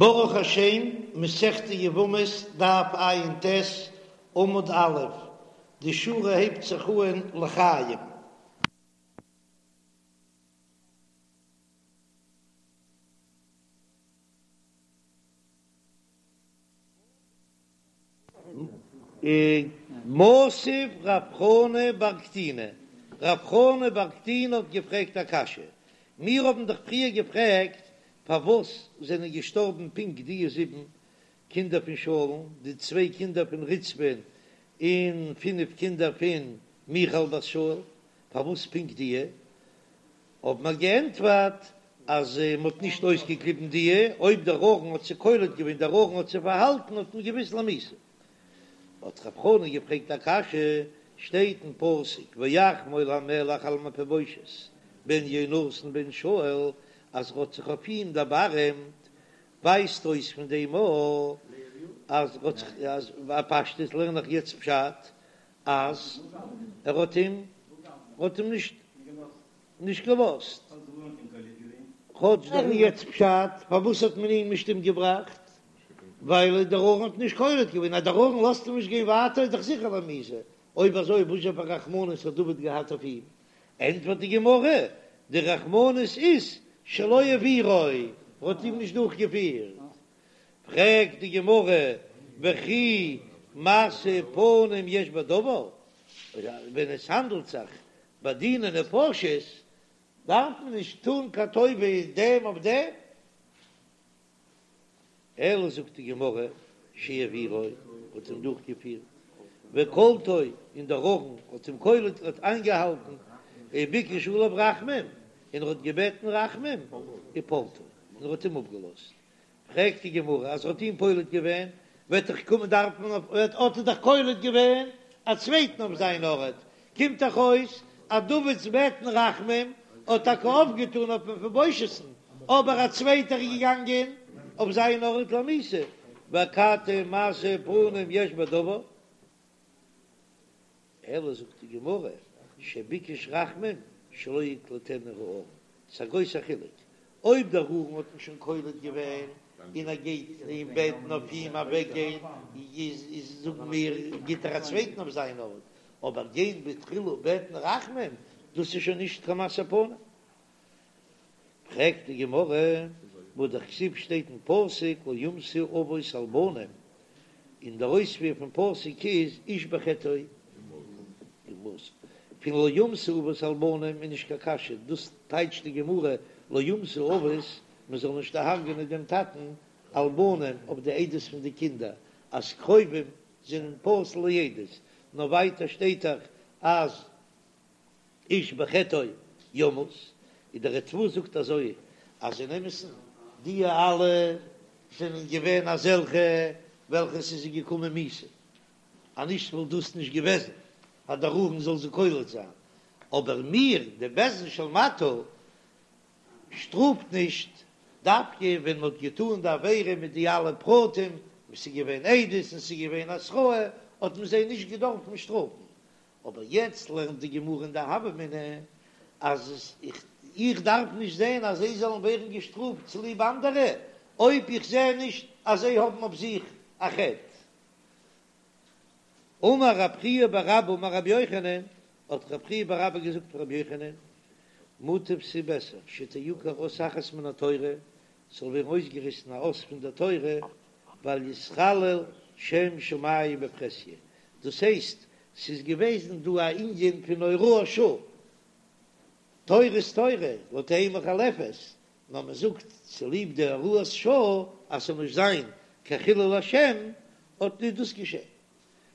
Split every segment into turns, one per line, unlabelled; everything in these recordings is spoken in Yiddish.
ברוך השם, מסכת יבמות, דף ע"ט, עמוד א', די שורה הייבט זיך אהן לחיים. מתיב רב חנא בר קטינא, רב חנא בר קטינא האט געפרעגט א קשיא, מיר האבן דאך פריער געפרעגט פארוואס זענען געשטארבן פונקט די זיבן קינדער פון שאול'ן, די צוויי קינדער פון רצפה'ן און פינף קינדער פון מיכל בת שאול, פארוואס פונקט די? האבן מיר געענטפערט אז מען האט נישט אויסגעקליבן די, אויב דער ארון האט זיי קולט געווען, דער ארון האט זיי פארהאלטן, האט מען געוואוסט למיתה. האט רב חנא געפרעגט א קשיא, שטייט אין פסוק ויחמול המלך על מפיבושת בן יונתן בן שאול, אז ער האט זיך אויף אים דערבארעמט, ווייזט אויס פון דעם א אז ער האט זיך, אז בפשטות לערן איך יעצט פשט אז ער האט אים האט אים נישט נישט געלאזט. כאטש דער יעצט פשט פארוואס האט מען אים נישט אומגעבראכט, ווייל דער ארון האט נישט קולט געווען, אז דער ארון לאזט אים נישט גיין ווייטער איז דאך זיכער למיתה, אויב אזוי וואס זשע פאר רחמנות האט דוד געהאט אויף אים? ענטפערט די גמרא, די רחמנות איז שלא העבירו, ער האט אים נישט דורכגעפירט. פרעגט די גמרא, וכי משוא פנים יש בדבר, ווען עס האנדלט זיך ביי דיני נפשות דארף מען נישט טון קיין טובה דעם אויף דעם, אלא זאגט די גמרא, שהעבירו, האט אים דורכגעפירט, וקלטו, און דער ארון האט אים קולט, האט איינגעהאלטן, וביקש עליו רחמים, און ער האט געבעטן רחמים, ופלטו, און ער האט אים אפגעלאזט. פרעגט די גמרא, אז ער האט אים פולט געווען, וועט דאך קומען דארף מען אויף, האט ער דאך קולט געווען א צווייטן אויף זיין ארט, קומט דאך אויס אז דוד'ס בעטן רחמים האט טאקע אויפגעטאן אויף מפיבושת'ן, אבער א צווייטער איז געגאנגען אויף זיין ארט למיתה, ואכתי משוא פנים יש בדבר. אלא זאגט די גמרא, שביקש רחמים שלא יקלטנו הארון, ס'איז א גרויסע חילוק אויב דער ארון האט אים שוין קולט געווען און ער גייט אים בעטן אויף אים אוועקגיין, איז זאגן מיר גיט ער א צווייטן אויף זיין ארט, אבער גיין בתחילה בעטן רחמים דאס איז שוין נישט קיין משוא פנים. פרעגט די גמרא, והא דכתיב שטייט אין פסוק לא יומתו אבות על בנים, און דער אויספיר פון פסוק איז איש בחטאו יומת, פון לא יומתו אבות על בנים איז נישט קיין קשיא, דאס טייטשט די גמרא לא יומתו אבות, מען זאל נישט דערהרג'ענען דעם טאטן על בנים אויף די עדות פון די קינדער, אז קרובים זענען פסול לעדות, נאר ווייטער שטייט דאך אז איש בחטאו יומת, און דער ריטב"א זאגט אזוי אז אין אמת'ן די אלע זענען געווען אזעלכע וועלכע ס'איז זיי געקומען מיתה, אז נישט וואלט דאס נישט געוועזן אז דער ארון זאל זיי קולט זיין, אבער מיר די בית דין של מטה שטראפט נישט דווקא ווען מ'האט געטאן די עבירה מיט די אלע פרטים, וואס ס'איז געווען עדות און ס'איז געווען התראה, האט מען זיי נישט געדארפן שטראפן, אבער יעצט לערנט די גמרא אין די הוה אמינא אז איך דארף נישט זען אז זיי זאלן ווערן געשטראפט צוליב אנדערע, אויב איך זע נישט אז זיי האבן אויף זיך א חטא. אמר רב חייא בר אבא אמר רבי יוחנן, האט רב חייא בר אבא געזאגט פון רבי יוחנן, מוטב ס'איז בעסער שתעקר אות אחת מן התורה, ס'זאל ווערן אויסגעריסן א אות פון דער תורה, ואל יתחלל שם שמים בפרהסיא, דאס הייסט, ס'איז געוועזן דא א ענין פון הוראת שעה, תורה איז תורה, לא תהא מוחלפת, נאר מען זאגט צוליב די הוראת שעה אז ס'זאל נישט זיין קיין חילול השם, האט נישט דאס געשען.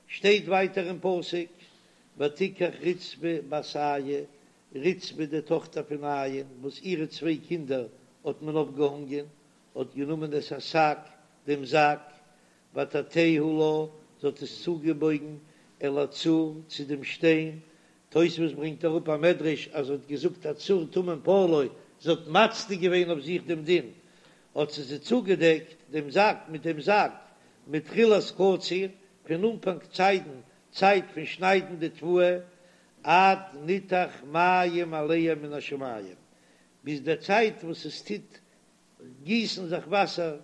שטייט ווייטער אין פסוק, ותקח רצפה בת איה, רצפה די טאכטער פון איה, וואס אירע צוויי קינדער האט מען אויפגעהאנגען, האט גענומען את השק, דעם זאק, ותטהו לה, זי האט עס צוגעבויגן אל הצור, צו דעם שטיין, תוספות ברענגט אראפ א מדרש אז זי האט געזאגט הצור תמים פעלו, זי האט מצדיק געווען אויף זיך דעם דין, האט זי זי צוגעדעקט דעם זאק מיט דעם זאק, מתחילת קציר, פון אנפאנג צייטן, צייט פון שניידן די תבואה, עד ניתך מים עליה מן השמים, ביז דער צייט וואס עס טוט גיסן זיך וואסער.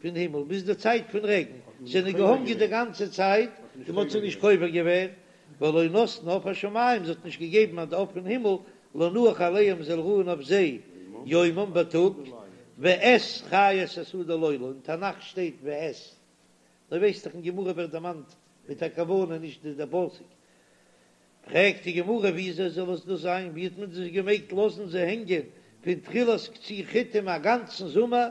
פון הימל ביז די צייט פון רעגן, זענען געהאנגען די גאנצע צייט און מ'האט זיי נישט קובר געווען, ולא נתנה עוף השמים, זי האט נישט געגעבן אז די עוף פון הימל לנוח עליהם זאל רוען אויף זיי יומם בייטאג, ואת חית השדה לילה, אין תנך שטייט ואת, דו ווייסט דאך אין גמרא ווערט דערמאנט מיט א כוונה נישט די פסוק. פרעגט די גמרא וויאזוי זאל עס דאס זיין, ווי האט מען דאס געמעגט לאזן זיי הענגען פון תחילת קציר חיטים א גאנצן זומער,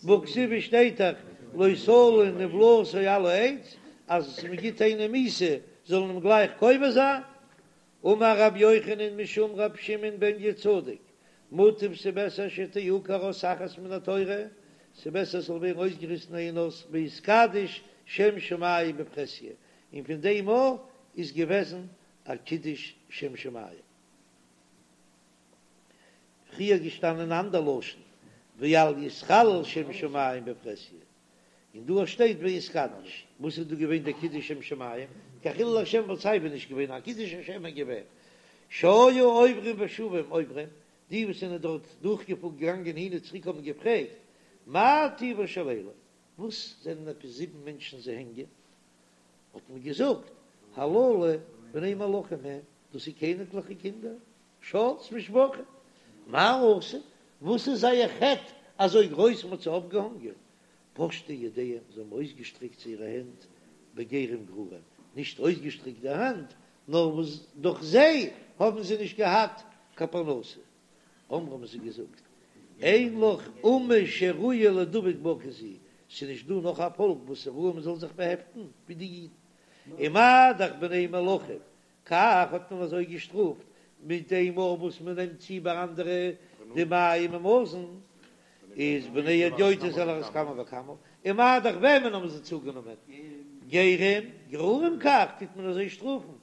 והכתיב שטייט דאך לא תלין נבלתו על העץ, אז מען גיט איינעם מיתה זאל מען אים גלייך קובר זיין, אמר רבי יוחנן משום רבי שמעון בן יהוצדק, מוטב ס'בעסער שתעקר אות אחת מן התורה, ס'בעסער ס'זאל ווערן אויסגעריסן איין אות ויתקדש שם שמים בפרהסיא, און פון דעם מאל איז געוועזן א קידוש שם שמים. פריער געשטאנען אן אנדער לשון ואל יתחלל שם שמים בפרהסיא, און דא שטייט ויתקדש, וואס איז דא געווען דער קידוש שם שמים? קיין חילול השם וואלט סייווי נישט געווען, א קידוש השם איז געווען שהיו עוברים ושבים אומרים, די וואס זענען דארט דורכגעפארן געגאנגען הין און צוריק האבן געפרעגט, מה טיבן של אלו, וואס זענען עפעס זיבן מענטשן זיי הענגען? האט מען געזאגט, הללו בני מלכים הם, דאס איז קעניגליכע קינדער, שאול'ס משפחה, מה עשו, וואס איז זייער חטא אזוי גרויס מען האט זיי אויפגעהאנגען? פשטו ידיהם, זיי האבן אויסגעשטרעקט זייערע הענט בגרים גרורים, נישט אויסגעשטרעקט די האנט, נאר וואס דורך זיי האבן זיי נישט געהאט קיין פרנסה. אמרו האבן זיי געזאגט, אין לך אומה שראויה לידבק בה כזו, ס'איז נישט דא נאך א פאלק וואס איז ראוי מ'זאל זיך באהעפטן ווי די אידן, ומה דאך בני מלכים, כך האט מען אזוי געשטראפט מיט דעם מאל וואס מען נעמט צו ביי אנדערע די מים און מזון, איז בני הדיוטות על אחת כמה וכמה, ומה דאך וועמען האבן זיי צוגענומען? גרים, גרורים כך טוט מען אזוי שטראפן,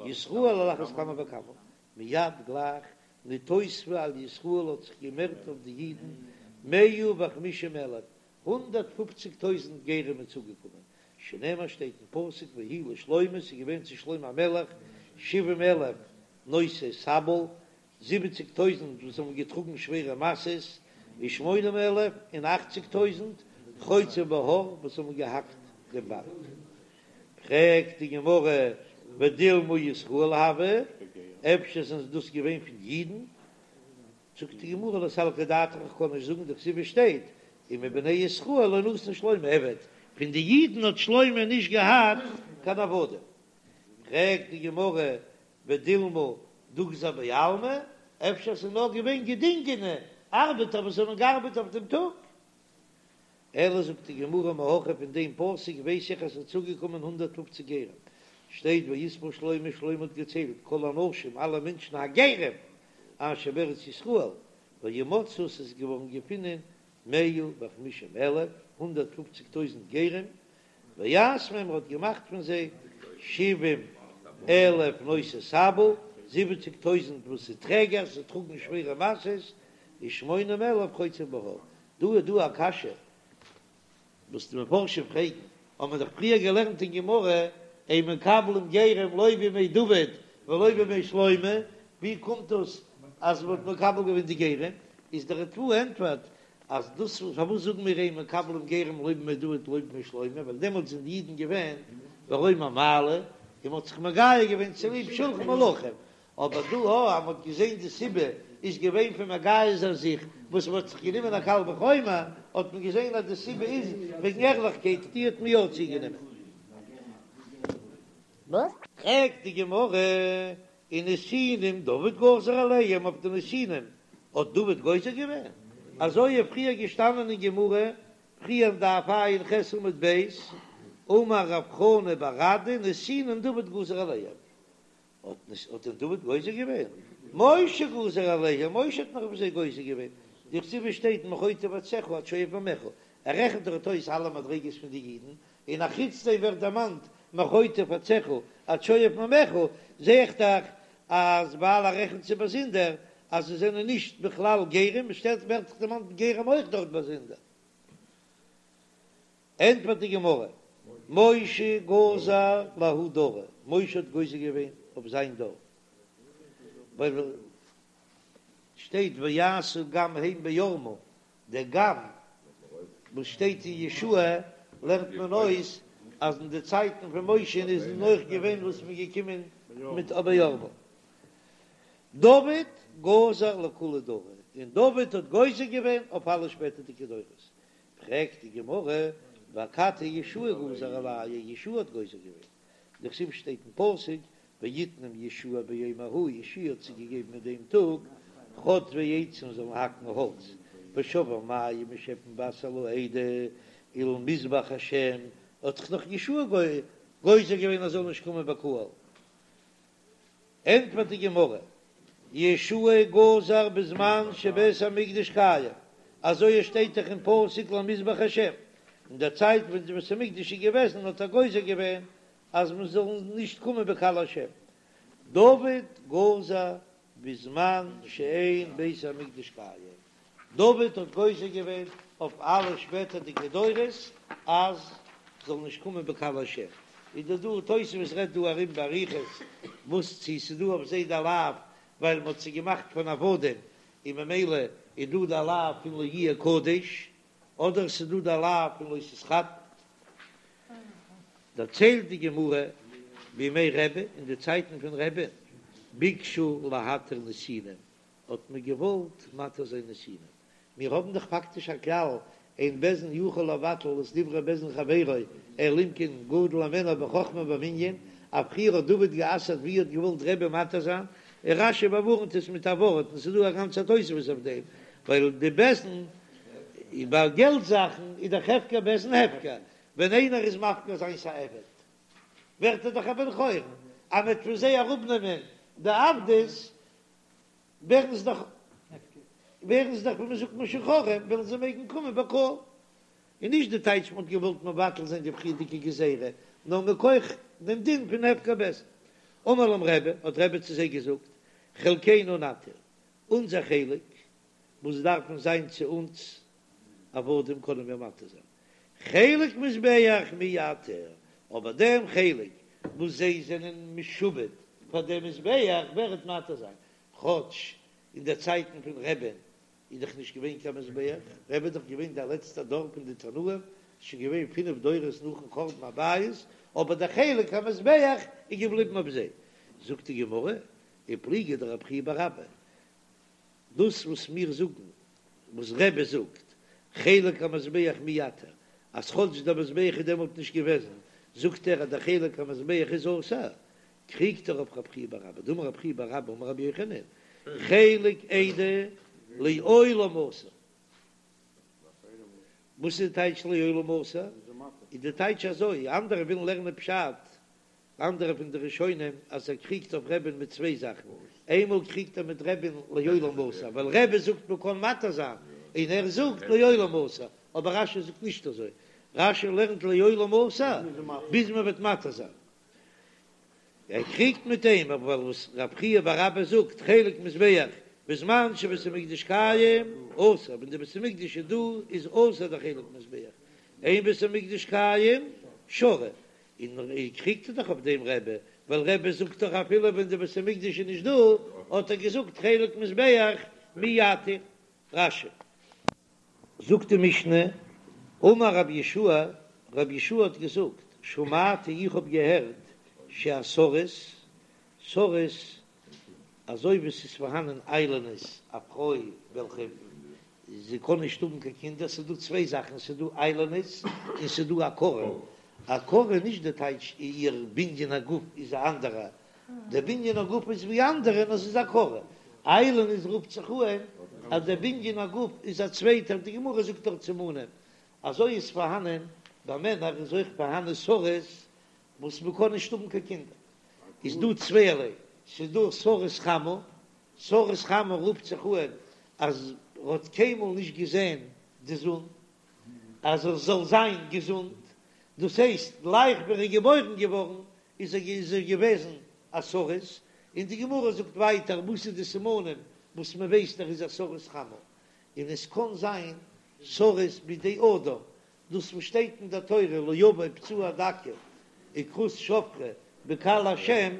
ישראל על אחת כמה וכמה, מיד גלייך נתוספו על ישראל האט זיך געמערט אויף די אידן מאה וחמישים אלף, 150 טויזנט גרים איז צוגעקומען, שנאמר שטייט אין פסוק ויהי לשלמה ס'איז געווען צו שלמה המלך שבעים אלף נושאי סבל, זיבעציג טויזנט וואס האבן געטראגן שווערע משאות, ושמונים אלף און אכציג טויזנט חוצבי בהר וואס האבן געהאקט דעם בארג. פרעגט די גמרא ודילמא ישראל הוו, אפשר זענען דאס געווען פון אידן? זאגט די גמרא לא סלקא דעתך איך קען נישט זאגן דכתיב שטייט ומבני ישראל לא נתן שלמה עבד, פון די אידן האט שלמה נישט געהאט קיין עבדים. פרעגט די גמרא ודילמא דוגזר בעלמא, אפשר ס'איז נאר געווען געדינגענע ארבעטער וואס האבן געארבעט אויף דעם טאג? אלא זאגט די גמרא מהכא פון דעם פסוק ווייס איך אז ס'איז צוגעקומען 150 גרים, שטייט ויספר שלמה, שלמה האט געציילט כל האנשים אלע מענטשן הגרים אשר בארץ ישראל, וימצאו ס'איז געווארן געפונען מאה וחמישים אלף, 150 טויזנט גרים, ויעש מהם ער האט געמאכט פון זיי שבעים אלף נושאי סבל, זיבעציג טויזנט וואס איז טרעגערס, זיי טראגן שווערע משאות, ושמונים אלף חוצבי בהר. דא איז דא א קשיא וואס די מפרשים פרעגן, האבן מיר דאך פריער געלערנט אין גמרא, אין מקבלים גרים לא בימי דוד ולא בימי שלמה, ווי קומט דאס אז מען האט מקבל געווען די גרים? איז דער ריטב"א ענטפערט אז דאס פארוואס זאגן מיר אין מקבלים גרים לא בימי דוד ולא בימי שלמה, ווייל דעמאלטס זענען די אידן געווען ברום המעלה און מען האט זיך מגייר געווען צוליב שלחן מלכים, אבער דא הא אז מ'האט געזען די סיבה איז געווען פון מגייר זיין זיך וואס מ'האט זיך גענומען א קל וחומר, האט מען געזען אז די סיבה איז וועגן ערליכקייט, די האט מען יא צוגענומען. פרעגט די גמרא, ונתינים דוד גזר עליהם, אויף די נתינים האט דוד גוזר געווען? אזוי איז פריער געשטאנען אין גמרא, פריער דף ע"ח עמוד ב', אמר רב חנא בר אדא נתינים דוד גזר עליהם, האט נישט האט דען דוד גוזר געווען? משה גזר עליהם, משה האט נאך אויף זיי גוזר געווען, דכתיב שטייט מחוטב עציך עד שואב מימיך, ער רעכנט דארט אויס אלע מדריגות פון די אידן, און א חוץ דעם ווערט דערמאנט מחוטב עציך עד שואב מימיך, זע איך דאך אז ווייל ער רעכנט זיי באזונדער אז זיי זענען נישט בכלל גרים, עס שטייט ווערט דאך דערמאנט גרים אויך דארט באזונדער. ענטפערט די גמרא, משה גזר לההוא דרא, משה האט גוזר געווען אויף זיין דור, ווייל שטייט ויעשו גם הם בערמה, דער גם. וואס שטייט אין יהושע לערנט מען אויס אז אין די צייטן פון משה איז אויך געווען וואס מ'איז געקומען מיט בערבה. דוד גזר לכולי דרא, און דוד האט גוזר געווען אויף אלע שפעטערדיגע דורות. פרעגט די גמרא, ואכתי יהושע גזר עלייהו, יהושע האט גוזר געווען, דכתיב שטייט אין פסוק, ויתנם יהושע ביום ההוא, יהושע האט זיי געגעבן אין דעם טאג, חוטבי עצים זאלן האקן האלץ, ושואבי מים און שעפן וואסער לעדה, ולמזבח השם, האט דאך נאך יהושע גוזר געווען אז זאל נישט קומען בקהל. ענטפערט די גמרא, יהושע גזר בזמן שבית המקדש קיים, אזוי עס שטייט דאך אין פסוק למזבח השם, אין דער צייט ווען די בית המקדש איז געוועזן האט ער גוזר געווען אז מען זאל נישט קומען בקהל השם. דוד גזר בזמן שאין בית המקדש קיים, דוד האט גוזר געווען אויף אלע שפעטערדיגע דורות אז זאל נישט קומען בקהל השם, איז דא דא תוספות רעדט דא ארום באריכות וואס צו ס'איז דא אויף זיי די לאו ווייל מ'האט זיי געמאכט פון עבדים און ממילא איז דא די לאו פון לא יהיה קדש, אדער ס'איז דא די לאו פון לא תתחתן. דערציילט די גמרא בימי רבי אין די צייטן פון רבי'ן ביקשו להתיר נתינים האט מען געוואלט מתיר זיין נתינים, מיר האבן דאך פאקטיש א כלל, אין בית דין יכול לבטל את דברי בית דין חברו, אלא אם כן גדול הימנו בחכמה ובמנין, אז פריער האט דוד גע'אסר'ט ווי האט געוואלט רבי מתיר זיין, און רש"י באווארנט עס מיט א ווארט, און ס'איז דא א גאנצע תוספות אויף דעם, ווייל די בית דין ביי געלט זאכן איז דאך הפקר בית דין הפקר, ווען איינער איז מפקיר זיינס א עבד ווערט ער דאך א בן חורין, אז מ'וועט פון זיי אראפנעמען די עבדות ווערן זיי דאך ווערן זיי דאך ווי מען זאגט משוחררים, וועלן זיי מעגן קומען בקהל. און נישט די טייטש מען האט געוואלט מבטל זיין די פריערדיגע גזירה, נאר מכח דעם דין פון הפקר בית דין. אמר להם רבי, האט רבי צו זיי געזאגט, חלקנו נתיר, אונזער חלק וואס דארפן זיין צו אונז עבדים קענען מיר מתיר זיין, חלק מזבח מי יתיר, אבער דעם חלק וואס זיי זענען משועבד פאר דעם מזבח ווער וועט מתיר זיין, כאטש אין די צייטן פון רבי'ן איז דאך נישט געווען קיין מזבח, רבי איז דאך געווען דער לעצטער דור פון די תנאים, שוין געווען פינף דורות נאכן חורבן הבית, אבער דער חלק המזבח איז געבליבן אויף זיי. זאגט די גמרא, ופליגא דרב חייא בר אבא, דאס וואס מיר זאגן, וואס רבי זאגט, חלק המזבח מי יתיר, אז כאטש דער מזבח איז דעמאלט נישט געוועזן, זאגט ער אז דער חלק המזבח איז אסור, קריגט ער אויף רב חייא בר אבא, דאמר רב חייא בר אבא אמר רבי יוחנן, חלק עדה לעולם אסור. וואס איז די טייטש לעולם אסור? איז די טייטש אזוי, אנדערע ווילן לערנען פשט אנדערע פון די ראשונים אז ער קריגט אויף רבי'ן מיט צוויי זאכן, איינמאל קריגט ער מיט רבי'ן לעולם אסור, ווייל רבי זאגט מען קען מתיר זיין, און ער זאגט לעולם אסור, אבער רש"י זאגט נישט אזוי, רש"י לערנט לעולם אסור ביז מען וועט מתיר זיין. ער קריגט מיט אים אבער ווייל וואס רב חייא בר אבא זאגט חלק מזבח בזמן שבית המקדש קיים אסור, ווען די בית המקדש איז דא איז אסור די חלק מזבח, אין בית המקדש קיים שרי, און קריגט ער דאך אויף דעם רבי, ווייל רבי זאגט דאך אפילו ווען די בית המקדש איז נישט דא, האט ער געזאגט חלק מזבח מי יתיר. רש"י. זאגט די משנה, אמר רבי יהושע, רבי יהושע האט געזאגט, שמעתי איך האב געהערט שהסריס, סריס, אזוי ווי ס'איז פארהאנען איילונית, א פרוי וועלכע זי קען נישט האבן קיין קינדער, ס'איז דא צוויי זאכן, ס'איז דא איילונית און ס'איז דא עקרה, עקרה איז נישט די טייטש איר בנין הגוף איז א אנדערע, די בנין הגוף איז ווי אנדערע נאר ס'איז עקרה, איילונית רופט זיך אן אז די בנין הגוף איז א צווייטער, די גמרא זאגט דארט סימנים, אזוי איז פארהאנען ביי מענער איז אויך פארהאנען סריס וואס מ'קען נישט האבן קיין קינדער, איז דא צווייערליי, ס'איז דא סריס חמה, סריס חמה רופט זיך אן אז ער האט קיינמאל נישט געזען די זון אז ער זאל זיין געזונט, דאס הייסט גלייך ווען ער איז געבוירן געווארן איז ער איז ער געוועזן א סריס, און די גמרא זאגט ווייטער וואס איז די סימנים וואס מען ווייסט ער איז א סריס חמה, און עס קען זיין סריס בידי אדם, דאס וואס שטייט אין דער תורה לא יבא פצוע דכא וכרות שפכה בקהל השם,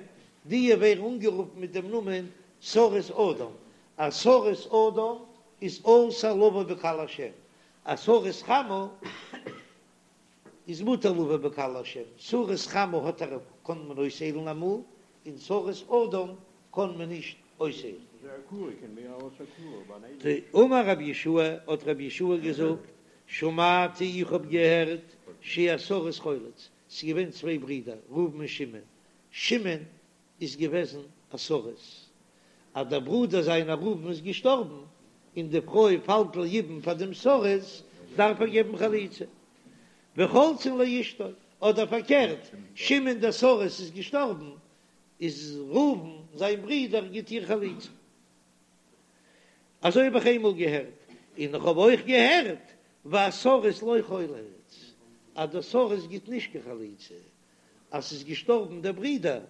די ווערן אנגערופן מיט דעם נאמען סריס אדם, א סריס אדם איז אסור לבוא בקהל השם. א סריס חמה איז מותר לבא בקהל השם, סריס חמה האט ער קען מען אויסהיילן אמאל, און סריס אדם קען מען נישט אויסהיילן. אמר רבי יהושע, האט רבי יהושע געזאגט, שמעתי איך האב געהערט שהסריס חולץ, ס'איז געווען צוויי ברידער ראובן און שמעון, שמעון איז געוועזן א סריס, אז דער ברודער זיינער ראובן איז געשטארבן און די פרוי פאלט ליבום פאר דעם סריס, דארף ער געבן חליצה, וחולצין לאשתו, אדער פארקערט, שמעון דער סריס איז געשטארבן, איז ראובן זיין ברודער גיט איר חליצה. אזוי האב איך איינמאל געהערט, און איך האב אויך געהערט והסריס לא חולץ, אז דער סריס גיט נישט קיין חליצה, אז ס'איז געשטארבן דער ברודער,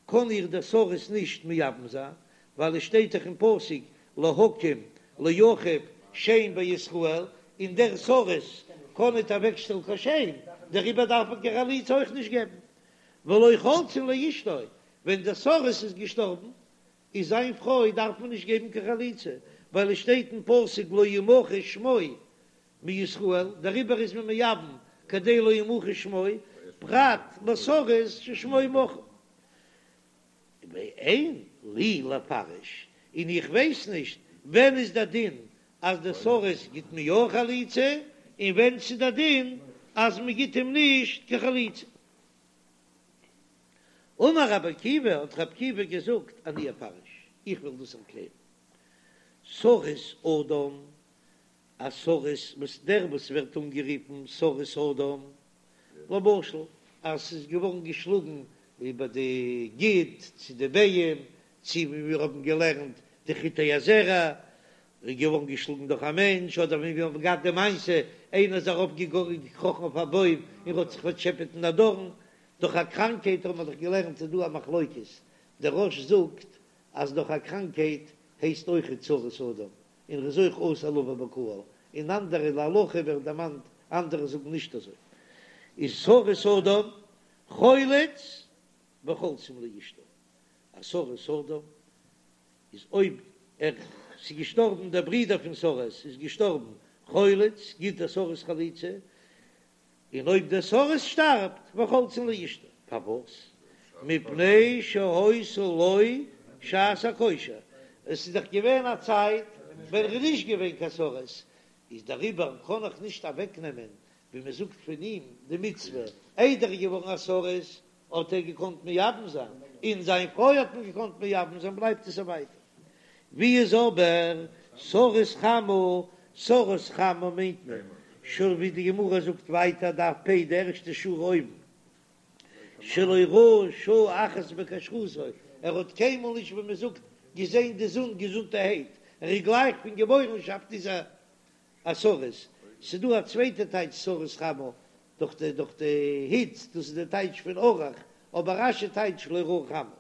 קען איר דער סריס נישט מייבם זיין, ווייל עס שטייט דאך אין פסוק להקים לאחיו שם בישראל, און דער סריס קען ניט אוועקשטעלן קיין שם, דעריבער דארף מען קיין חליצה אויך נישט געבן. ולא חולצין לאשתו, ווען דער סריס איז געשטארבן, איז זיין פרוי דארף מען נישט געבן קיין חליצה, ווייל עס שטייט אין פסוק לא ימחה שמו מישראל, דעריבער איז מען מייבם כדי לא ימחה שמו, פרט לסריס ששמו מחוי. ואין לי לפרש, און איך ווייס נישט ווען איז דער דין אז דער סריס גיט מען יא חליצה, און ווען ס'איז דער דין אז מען גיט אים נישט קיין חליצה. אמר רבי עקיבא, האט רבי עקיבא געזאגט, אני אפרש, איך וועל דאס ערקלערן. סריס אדם, א סריס וואס דער וואס ווערט אנגערופן סריס אדם, למשל אז ס'איז געווארן געשלאגן איבער די גיד צו די ביעים, צו ווי מיר האבן געלערנט די חוטי הזרע איז געווארן געשלאגן דורך א מענטש, אדער ווי מיר האבן געהאט די מעשה איינער איז ארויף געקראכן אויף א בוים און האט זיך פארטשעפעט אין א דארן, דורך א קראנקהייט האבן מיר דאך געלערנט איז דא א מחלוקת, דער רא"ש זאגט אז דורך א קראנקהייט הייסט אויכעט סריס אדם, און ר'איז אויך אסור לבא בקהל, און אנדערע להלכה ווערט דערמאנט אנדערע זאגן נישט אזוי, איז סריס אדם חולץ וחולצין לאשתו, א סריס אדם איז אויב ער ס'איז געשטארבן דער ברודער פון סריס איז געשטארבן חולץ גיט דער סריס חליצה, און אויב דער סריס שטארבט וחולצין לאשתו, פארוואס? מפני שהיתה לו שעת הכושר, עס איז דאך געווען א צייט ווען ער איז נישט געווען קיין סריס, איז דעריבער קען איך נישט אוועק נעמען ווי מען זאגט פון אים די מצוה, איידער ער איז געווארן א סריס האט ער געקאנט מייבם זיין, און זיין פרוי האט מען געקאנט מייבם זיין, בלייבט עס אויף ווייטער. ווי איז אבער סריס חמה? סריס חמה מיינט מען שוין ווי די גמרא זאגט ווייטער דף פ' די ערשטע שורה אויבן, שלא ראה שעה אחת בכשרותו, ער האט קיינמאל נישט ווי מען זאגט געזען די זון געזונטערהייט, ער איז גלייך פון געבוירנשאפט איז ער א סריס, ס'דא א צווייטע טייטש סריס חמה דורך די דורך די היץ, דאס איז די טייטש פון ארוך, אבער רש"י טייטשט לא ראה חמה.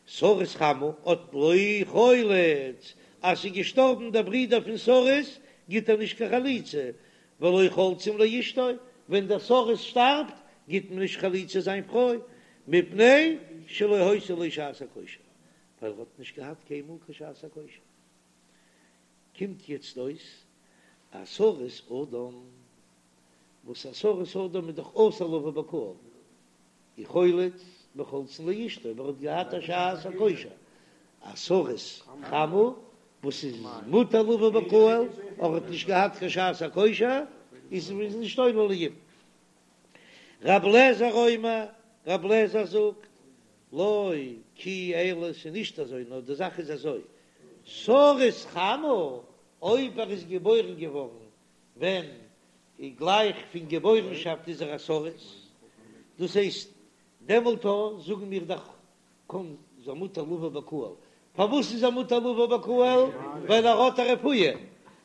סריס חמה האט לא חולץ, אז ס'איז געשטארבן דער ברודער פון סריס גיט ער נישט קיין חליצה, ולא חולצין לאשתו, ווען דער סריס שטארבט גיט מען נישט חליצה זיין פרוי, מפני שלא היתה לו שעת הכושר, ווייל ער האט נישט געהאט קיינמאל קיין שעת הכושר. קומט יעצט אויס א סריס אדם, וואס א סריס אדם איז דאך אסור לבא בקהל, איז חולץ וחולצין לאשתו, אבער ער האט געהאט א שעת הכושר, א סריס חמה וואס איז מותר לבא בקהל, אבער האט נישט געהאט קיין שעת הכושר, איז איז נישט עולה ליבום. רב לעזער אומר, רב לעזער זאגט, לא כי אלא ס'איז נישט אזוי, נאר די זאך איז אזוי, סריס חמה, אויב ער איז געבוירן געווארן ווען גלייך פון געבוירנשאפט איז ער א סריס, דאס הייסט דעמאלט זאגן מיר דאך קוים איז ער מותר לבא בקהל, פארוואס איז ער מותר לבא בקהל? ווייל ער האט א רפואה,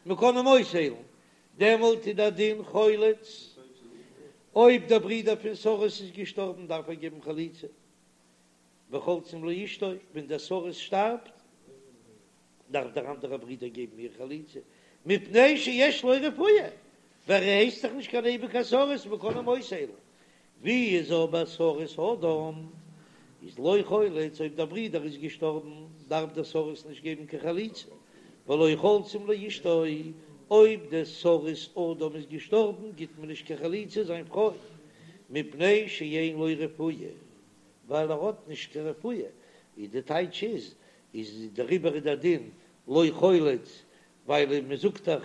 מען קען אים אויסהיילן, דעמאלט איז דער דין חולץ, אויב דער ברודער פון סריס איז געשטארבן דארף ער געבן חליצה, וחולצין לאשתו, ווען דער סריס שטארבט דארף דער אנדערער ברודער געבן איר חליצה, מפני שיש לו רפואה, ווייל ער הייסט דאך נישט קיין אייביגע סריס, מען קען אים אויסהיילן. ווי איז אבער סריס אדם איז לא חולץ, אויב דער ברודער איז געשטארבן דארף דער סריס נישט געבן קיין חליצה, ולא חולצין לאשתו. אויב דער סריס אדם איז געשטארבן גיט מען נישט קיין חליצה זיין פרוי, מפני שאין לו רפואה, ווייל ער האט נישט קיין רפואה, איז די טייטש איז, איז דעריבער איז דער דין לא חולץ, ווייל מען זאגט דאך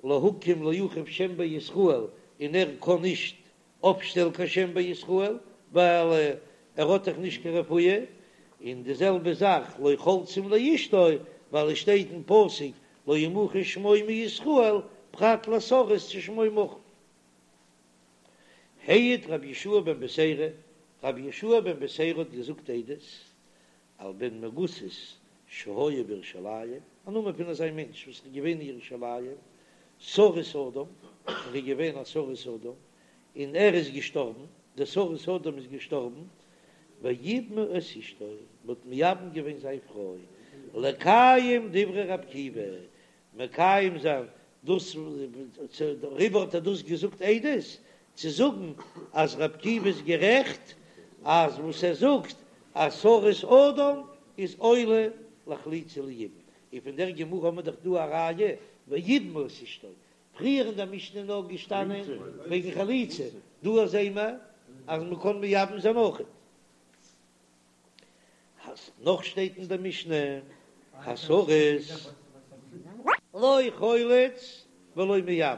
להקים לאחיו שם בישראל און ער קען נישט אויפשטעלן קיין שם בישראל ווייל ער האט דאך נישט קיין רפואה, און די זעלבע זאך לא חולצין לאשתו ווייל עס שטייט אין פסוק לא ימחה שמו מישראל פרט לסריס ששמו מחוי. העיד רבי יהושע בן בתירא, רבי יהושע בן בתירא האט געזאגט עדות על בן מגוסת שהיה בירושלים, א נאמען פון אזא מענטש וואס איז געווען אין ירושלים, סריס אדם, ער איז געווען א סריס אדם, און ער איז געשטארבן, דער סריס אדם איז געשטארבן, ויבמו את אשתו, מען האט מייבם געווען זיין פרוי, לקיים דברי רבי עקיבא, מקיים זיין דאס, דעריבער האט ער דאס געזאגט עדות, צו זאגן אז רבי עקיבא איז גערעכט אז וואס ער זאגט אז סריס אדם איז עולה לחליצה וליבום, און פון דער גמרא האבן מיר דאך דא א ראיה ויבמו את אשתו, פריער אין דער משנה איז נאר געשטאנען וועגן חליצה, דא זעען מיר אז מען קען מייבם זיין אויכעט. נאך שטייט אין דער משנה הסריס לא חולץ ולא מייבם,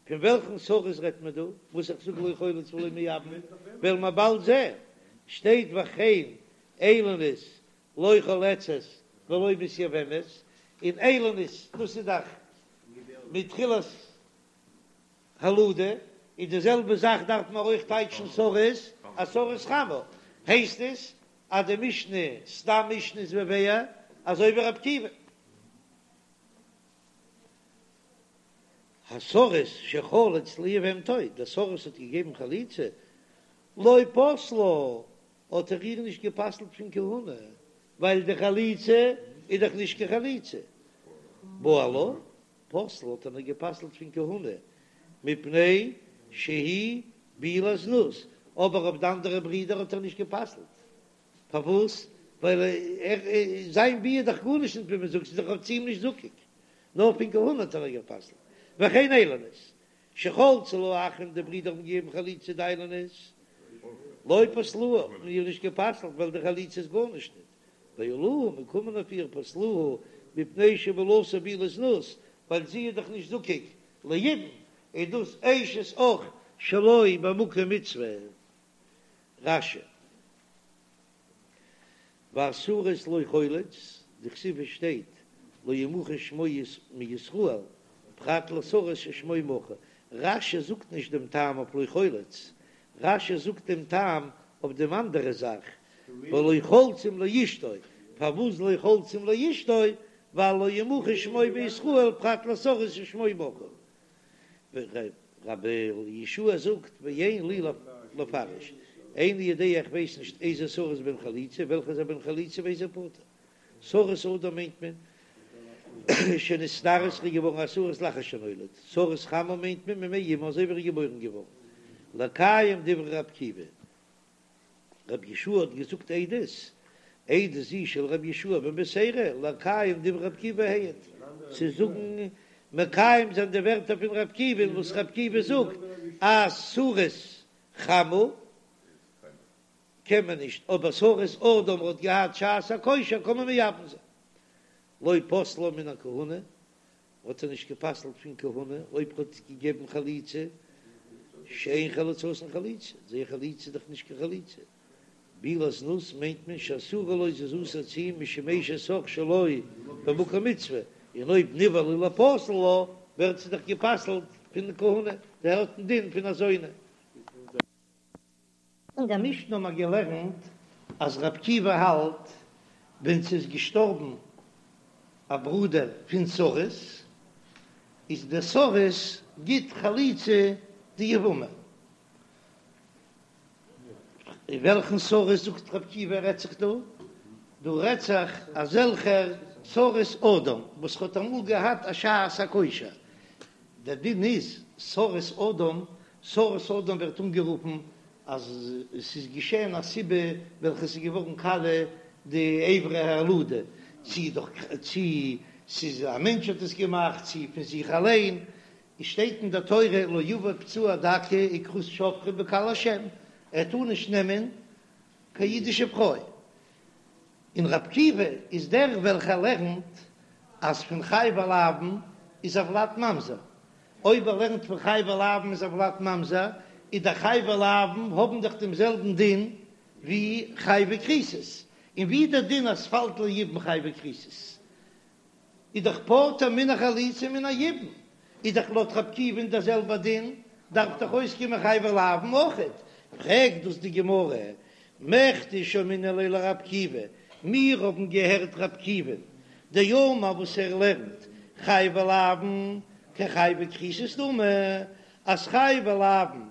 פון וועלכן סריס רעדט מען דא וואס איך זאג לא חולץ ולא מייבם, וועלן מיר באלד זען, שטייט וכן איילונית לא חולצת ולא מתייבמת, און איילונית דאס איז דאך מתחילת הולדה, און די זעלבע זאך דארף מען אויך טייטשן סריס, א סריס חמה, הייסט עס אז די משנה, סתם משנה איז בביה, אזוי ווי רבי עקיבא. הסריס שחלץ ליבמתו, דער סריס האט געגעבן חליצה, לא פסלה, האט ער איר נישט גע'פסל'ט פון כהונה, ווייל די חליצה איז דאך נישט קיין חליצה. בעלה, פסלה האט ער איר גע'פסל'ט פון כהונה, מפני שהיא בעילת זנות, אבער אויף די אנדערע ברידער האט ער נישט גע'פסל'ט, פארוואס? ווייל ער זיין ביאה איז דאך גארנישט נישט ווי מען זאגט, ס'איז דאך צו אים נישט זקוק, נאר פון כהונה האט ער איר גע'פסל'ט, וכן איילונית, שחלצו לה האחים די ברידער האבן געגעבן חליצה די איילונית, לא פסלוה, האט מען איר נישט גע'פסל'ט ווייל די חליצה איז גארנישט נישט. בעליה געקומען אויף איר פסלוה מפני שבעילתה בעילת זנות, ווייל זי איז דאך נישט זקוק ליבום, איז דאס אשת אח שלא במקום מצוה. רש"י. והסריס לא חולץ, דכתיב שטייט לא ימחה שמו מישראל, פרט לסריס ששמו מחוי. רש"י זאגט נישט דעם טעם אויף לא חולץ, רש"י זאגט דעם טעם אויף דעם אנדערע זאך, ולא חולצים לאשתו, פארוואס לא חולצים לאשתו, ווייל לא ימחה שמו בישראל פרט לסריס ששמו מחוי. רבי יהושע זאגט ואין לי לפרש, איני יודע איך ווייס נישט איזה סריס בן חליצה, וועלכע איז א בן חליצה ואיזה פטור. סריס אדם מיינט מען שנתארס איז געווארן א סריס לאחר שנולד, סריס חמה מיינט מען ממעי אמו אזוי ווי ער איז געבוירן געווארן, לקיים דברי ר' עקיבא, רבי יהושע האט געזאגט עדות, עדות זו של רבי יהושע בן בתירא, לקיים דברי ר' עקיבא העיד, צו זאגן מקיים זיין די ווערטער פון ר' עקיבא וואס ר' עקיבא זאגט אז סריס חמה קען מען נישט, אבער סריס אדם האט געהאט שעת הכושר קען מען מייבם זיין. לא פסלה מן הכהונה, האט ער נישט גע'פסל'ט פון כהונה אויב האט געגעבן חליצה, שאין חליצתן חליצה, זייער חליצה איז דאך נישט קיין חליצה. בעילת זנות מיינט מען שאסורה לו זי איז אסור צו אים משום אשת אח שלא במקום מצוה, און אויב נבעלה ליפסל לה ווערט זי דאך גע'פסל'ט פון כהונה, זי האט דעם דין פון א זונה. אין דער משנה האבן מיר געלערנט אז ר' עקיבא האלט ווען ס'איז געשטארבן א ברודער פון סריס, איז דער סריס גיט חליצה די יבמה. וועלכן סריס זאגט ר' עקיבא רעדט זיך דא? דא רעדט זיך אזעלכער סריס אדם וואס האט אמאל געהאט א שעת הכושר, דער דין איז סריס אדם, סריס אדם ווערט אנגערופן אז עס איז געשען א סיבה וועלכע עס איז געווארן קאליע די אברי הולדה, צי דורך צי. ס'איז א מענטש האט עס געמאכט צי פון זיך אליין, עס שטייט אין דער תורה לא יבא פצוע דכא וכרות שפכה בקהל השם, ער טאר נישט נעמען קיין אידישע פרוי, און ר' עקיבא איז דער וועלכער לערנט אז פון חייבי לאוין איז הולד ממזר, אויב ער לערנט פון חייבי לאוין איז הולד ממזר, איז די חייבי לאוין האבן דאך דעם זעלבן דין ווי חייבי כריתות, און ווי דער דין אז ס'פאלט ליבום חייבי כריתות איז דאך פטור מן החליצה ומן היבום, איז דאך לויט ר' עקיבא'ן דער זעלבער דין, דארף דאך אויסקומען חייבי לאוין אויכעט, פרעגט דאס די גמרא, מכדי שמעינן ליה לר' עקיבא, מיר האבן געהערט ר' עקיבא'ן דאמר וואס ער לערנט חייבי לאוין כחייבי כריתות דמי, אז חייבי לאוין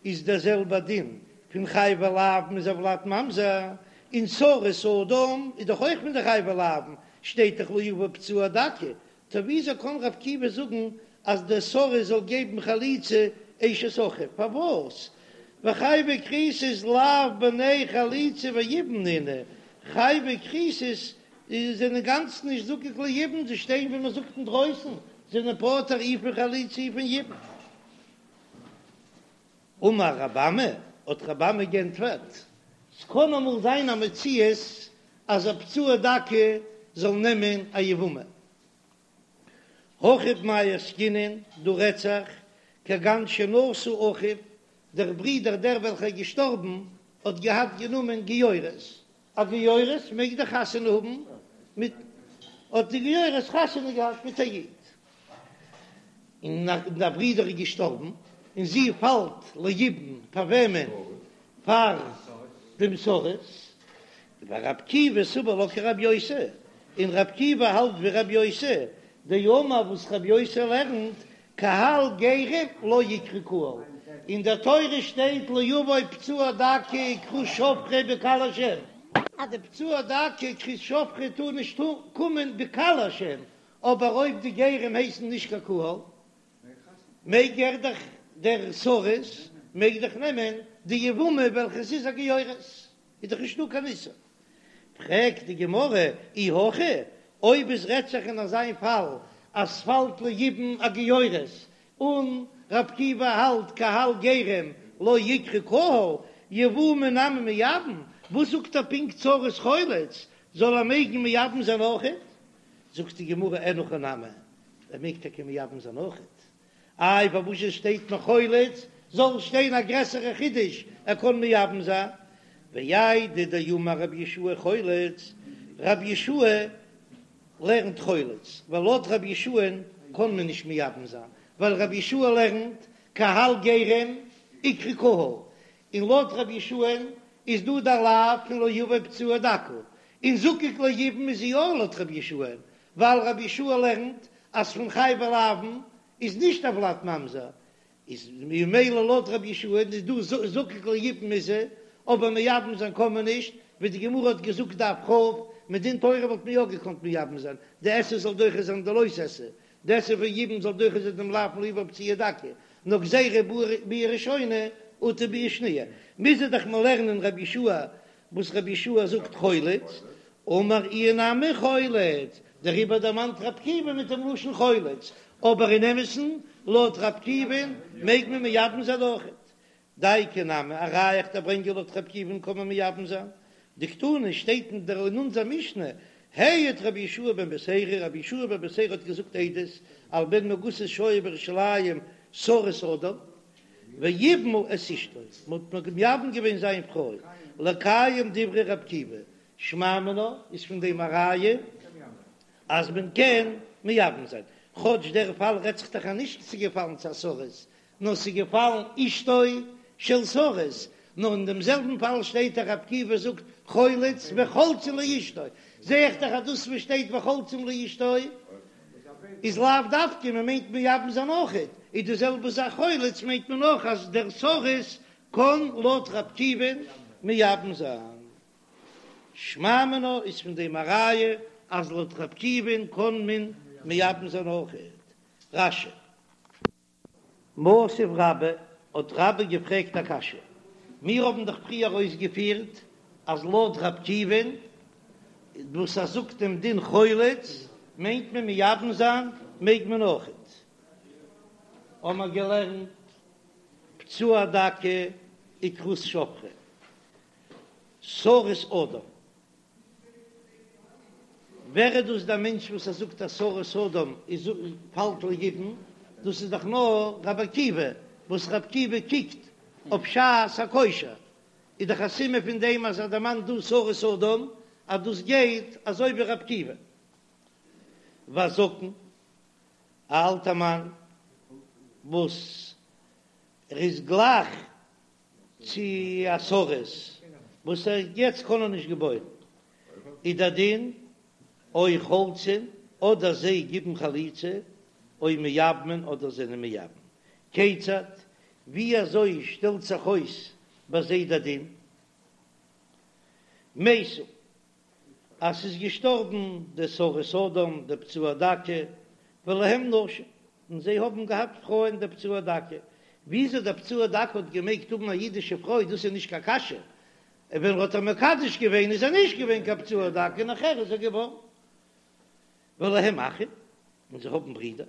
איז דער זעלבער דין פון חייבי לאוין איז הולד ממזר, און סריס אדם איז דאך אויך פון די חייבי לאוין, שטייט דאך לא יבא פצוע דכא, טא וויאזוי קען ר' עקיבא זאגן אז דער סריס זאל געבן חליצה אשת אחיו? פארוואס? וחייבי כריתות לאו בני חליצה ויבום נינהו, חייבי כריתות זענען אינגאנצן נישט זקוק ליבום, זיי שטייען ווי מען זאגט אינדרויסן, זענען פטור אי פון חליצה אי פון יבום. אמר רב אמי, האט רב אמי גענטפערט, ס'קען אמאל זיין א מציאות אז א פצוע דכא זאל נעמען א יבמה. הכא במאי עסקינן, דא רעדט זיך, כגון שנשא אחיו, דער ברודער דער וועלכער איז געשטארבן האט געהאט גענומען גיורת, א גיורת מעג דאך חתונה האבן מיט, האט די גיורת חתונה געהאט מיט א איד, און דער ברודער איז געשטארבן, און זי פאלט ליבום פאר וועמען? פאר דעם סריס, ור' עקיבא סבר לה כר' יוסי, און ר' עקיבא האלט ווי ר' יוסי, דאמר וואס ר' יוסי לערנט, קהל גרים לא איקרי קהל, אין דער תורה שטייט לא יבוא פצוע דכא וכרות שפכה בקהל השם, אז די פצוע דכא וכרות שפכה טאר נישט קומען בקהל השם, אבער אויב די גרים הייסן נישט קיין קהל, מעג ער דאך דער סריס מעג דאך נעמען די יבמה וועלכע עס איז א גיורת, איז דאך נישטא קיין איסור. פרעגט די גמרא, אי הכי, אויב עס רעדט זיך אין אזיין פאל אז ס'פאלט ליבום א גיורת, און ר' עקיבא האלט קהל גרים לא איקרי קהל, יבומי נמי מייבם, וואס זאגט ער פונקט סריס חולץ, זאל ער מעגן מייבם זיין אויכעט? זאגט די גמרא אין הכי נמי, ער מעג טאקע מייבם זיין אויכעט, איי פארוואס עס שטייט נאר חולץ, זאל שטיין א גרעסערע חידוש ער קען מייבם זיין, ואיידי דאמר רבי יהושע חולץ, רבי יהושע לערנט חולץ, ווייל לויט רבי יהושע'ן קען מען נישט מייבם זיין, ווייל רבי יהושע לערנט קהל גרים איקרי קהל, און לויט רבי יהושע'ן איז דא דער לאו פון לא יבא פצוע דכא, און זקוק ליבום איז זי יא לויט רבי יהושע'ן, ווייל רבי יהושע לערנט אז פון חייבי לאוין איז נישט הולד ממזר, איז ממילא לויט רבי יהושע איז דא זקוק ליבום איז זי, אבער מייבם זיין קען מען נישט, ווי די גמרא האט געזאגט דף כ', מדין תורה וואלט מען יא געקאנט מייבם זיין, די עשה זאל דוחה זיין די לא תעשה, די עשה פון יבום זאל דוחה זיין דעם לאו פון לא יבא פצוע דכא, נאר גזירה ביאה ראשונה אטו ביאה שניה, מוז ער דאך מיר לערנען רבי יהושע וואס רבי יהושע זאגט חולץ, אמר איהו נמי חולץ, דעריבער דערמאנט רבי עקיבא מיט דעם לשון חולץ, אבער אין אמת'ן לויט רבי עקיבא'ן מעג מען מייבם זיין אויכעט. דייקא נמי, א ראיה איך דיר ברענגען לויט רבי עקיבא'ן קען מען מייבם זיין, דקתני שטייט אין דער אין אונזער משנה, העיד רבי יהושע בן בתירא, רבי יהושע בן בתירא האט געזאגט עדות על בן מגוסת שהיה בירושלים סריס אדם, ויבמו את אשתו, מען האט מייבם געווען זיין פרוי, לקיים דברי רבי עקיבא, שמע מינה איז פון דעם א ראיה אז מען קען מייבם זיין, כאטש דער פאל רעדט זיך דאך אז נישט ס'איז געפאלן צו א סריס, נאר ס'איז געפאלן אשתו של סריס, נאר אין דעם זעלבן פאל שטייט דאך רבי עקיבא זאגט חולץ וחולצין לאשתו, זע איך דאך אז דאס וואס שטייט וחולצין לאשתו איז לאו דווקא מען מיינט מייבם זיין אויכעט, איז די זעלבע זאך חולץ מיינט מען אויך אז דער סריס קען לויט רבי עקיבא'ן מייבם זיין. שמע מינה איז פון דעם א ראיה אז לויט רבי עקיבא'ן קען מען מייבם זיין אויכעט. רש"י. מתיב רבה, האט רבה געפרעגט א קשיא, מיר האבן דאך פריער אויסגעפירט אז לויט רבי עקיבא'ן וואס ער זאגט דעם דין חולץ. מיינט מען מייבם זיין מעג מען אויכעט. האמער געלערנט פצוע דכא וכרות שפכה, סריס אדם. ווער איז דאס דער מענטש וואס ער זאגט אז סריס אדם איז פאלט ליבום? דאס איז דאך נאר רבי עקיבא, וואס רבי עקיבא קוקט אויף שעת הכושר, איז דאך א סימן פון דעם אז ער דערמאנט דא סריס אדם אז דאס גייט אזוי ווי רבי עקיבא. והזקן, א אלטע מאן וואס ער איז גלייך צו א סריס וואס ער יעצט קען ער נישט געבוירן, איז דער דין או חולצין אדער זיי גיבן חליצה, או מייבמין אדער זענען מייבם. כיצד, ווי אזוי שטעלט זיך אויס ביי זיי דער דין? מתו, אז ס'איז געשטארבן דער סריס אדם, דער פצוע דכא, ולהם נשים, און זיי האבן געהאט פרויען דער פצוע דכא. וויאזוי דער פצוע דכא האט געמעגט האבן א אידישע פרוי, דאס איז נישט קיין קשיא, ווען ער האט איר מקדש געווען איז ער נישט געווען קיין פצוע דכא, נאכער איז ער געווארן. ולהם אחים, און זיי האבן ברידער,